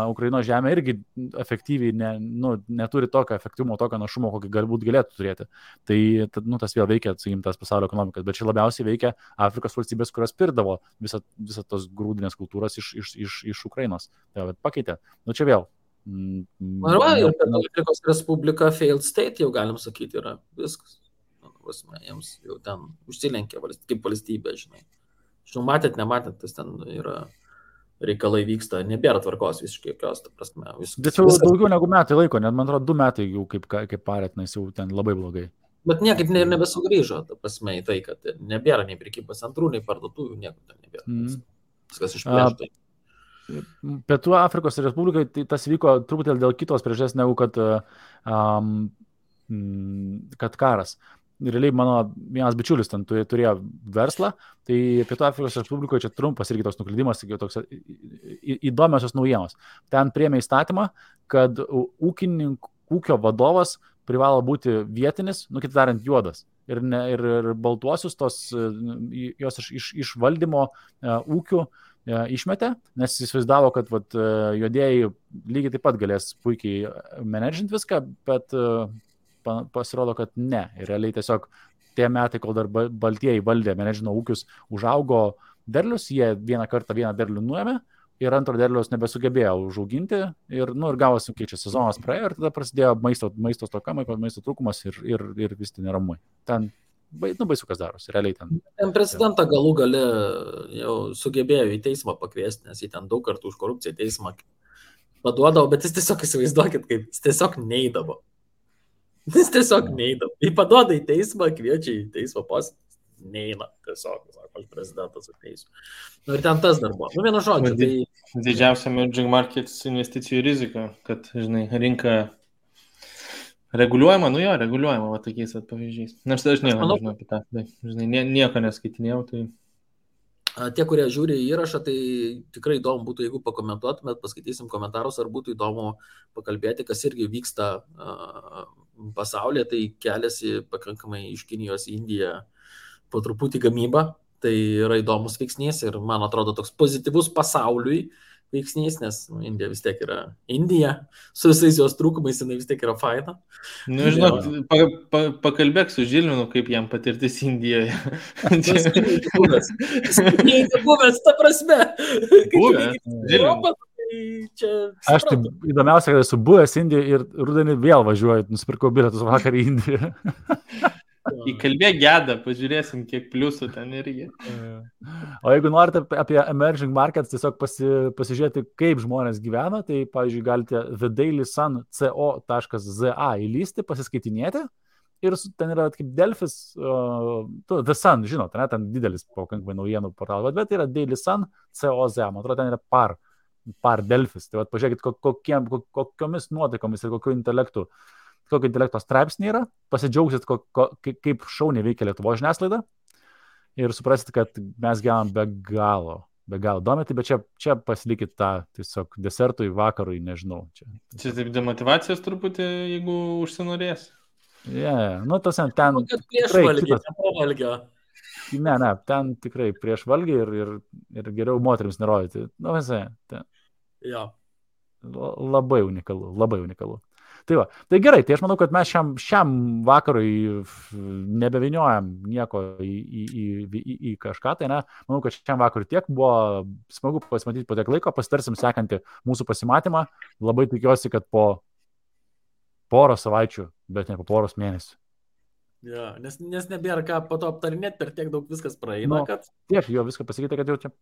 Ukrainos žemė irgi efektyviai neturi tokio efektyvumo, tokio našumo, kokį galbūt galėtų turėti. Tai tas vėl veikia, sakykim, tas pasaulio ekonomikas, bet čia labiausiai veikia Afrikos valstybės, kurios pirdavo visą tos grūdinės kultūros iš Ukrainos. Tai pakeitė. Čia vėl. Ir Afrikos Respublika failed state, jau galim sakyti, yra viskas. Jiems jau ten užsilenkė kaip valstybė, žinai. Žinau, nematėt, tas ten yra reikalai vyksta, nebėra tvarkos visiškai jokios, ta prasme. Bet jau daugiau negu metai laiko, net man atrodo 2 metai jau kaip parėtinas, jau ten labai blogai. Bet niekaip nebesugrįžo, ta prasme, į tai, kad nebėra nei prekybos centrų, nei parduotuvių, nieko ten nebėra. Viskas išplėšta. Pietų Afrikos Respublikai tai tas vyko truputėlį dėl kitos priežasties, negu kad karas. Realiai mano vienas bičiulis ten turėjo verslą, tai Pietų Afrikos Respublikoje čia trumpas irgi toks nuklydimas, toks įdomiosios naujienos. Ten priėmė įstatymą, kad ūkio vadovas privalo būti vietinis, kitaip tariant, juodas. Ir baltuosius jos iš valdymo ūkių išmetė, nes jis įsivaizdavo, kad juodieji lygiai taip pat galės puikiai menedžinti viską, bet pasirodo, kad ne. Ir realiai tiesiog tie metai, kol dar baltieji valdė, menedžino ūkius, užaugo derlius, jie vieną kartą vieną derlių nuėmė ir antro derliaus nebesugebėjo užauginti ir gavosi, kai čia sezonas praėjo ir tada prasidėjo maisto stoka, maisto trūkumas ir vis ten neramai. Ten baisu kas darosi, realiai ten. Ten prezidentą galų gale jau sugebėjo į teismą pakviesti, nes jį ten daug kartų už korupciją teismą paduodavo, bet jis tiesiog įsivaizduokit, kaip jis tiesiog neidavo. Jis tiesiog neidavo. Jį paduoda į teismą, kviečia į teismą posėdį, neina tiesiog, sako, prezidentas ateisiu. Ir ten tas dar buvo. Vienu žodžiu. Tai didžiausia emerging markets investicijų rizika, kad, žinai, rinka reguliuojama, reguliuojama, tokiais pavyzdžiais. Nors aš nieko nežinau apie tą, tai, žinai, nieko neskaitinėjau, tai... Tie, kurie žiūri įrašą, tai tikrai įdomu būtų, jeigu pakomentuotumėt, paskaitysim komentarus, ar būtų įdomu pakalbėti, kas irgi vyksta pasaulyje, tai keliasi pakankamai iš Kinijos į Indiją po truputį gamybą, tai yra įdomus veiksnys ir man atrodo toks pozityvus pasauliui veiksnys, nes Indija vis tiek yra Indija, su visais jos trūkumais jinai vis tiek yra faina. Žinok, pakalbėk su Žilvinu, kaip jam patirtis Indijoje. Buvęs, ta prasme. Buvęs, Žilvinu. Aš taip įdomiausia, kad esu buvęs Indijoje ir rudenį vėl važiuoju, nusipirkau bilietus vakar į Indiją. Įkalbėk Gedą, pažiūrėsim, kiek pliusų ten irgi. O jeigu norite apie emerging markets tiesiog pasižiūrėti, kaip žmonės gyvena, tai, pavyzdžiui, galite thedailysun.co.za įlysti, pasiskaitinėti ir ten yra kaip Delfis, The Sun, žinot, ten didelis pakankamai naujienų portalas, bet yra dailysun.co.za, man atrodo, ten yra par Delfis. Tai pažiūrėkit, kokiomis nuotaikomis ir kokio intelekto straipsnį yra, pasidžiaugsit, kaip šauniai veikia Lietuvos žiniasklaida ir suprasit, kad mes gyvenam be galo domėti, bet čia pasilikit tą tiesiog desertui, vakarui, nežinau. Čia taip demotivacijos truputį, jeigu užsinorės. Tas ten prieš valgį, nepavalgio. Ne, ten tikrai prieš valgį ir geriau moterims nerodyti. Labai unikalu. Tai gerai, tai aš manau, kad mes šiam vakarui nebeviniojam nieko į kažką, tai ne, manau, kad šiam vakarui tiek buvo smagu pasimatyti po tiek laiko, pasitarsim sekantį mūsų pasimatymą, labai tikiuosi, kad po poros savaičių, bet ne po poros mėnesių. Nes nebėra ką po to aptarinėti, per tiek daug viskas praeina, kad... Tiek, jo viską pasakyti, kad jau čia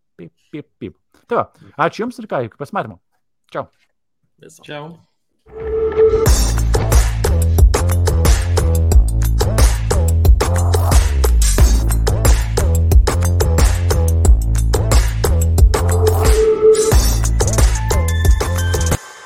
pip. Tai va, ačiū Jums ir ką, iki pasimatymo. Čiau. Ciao.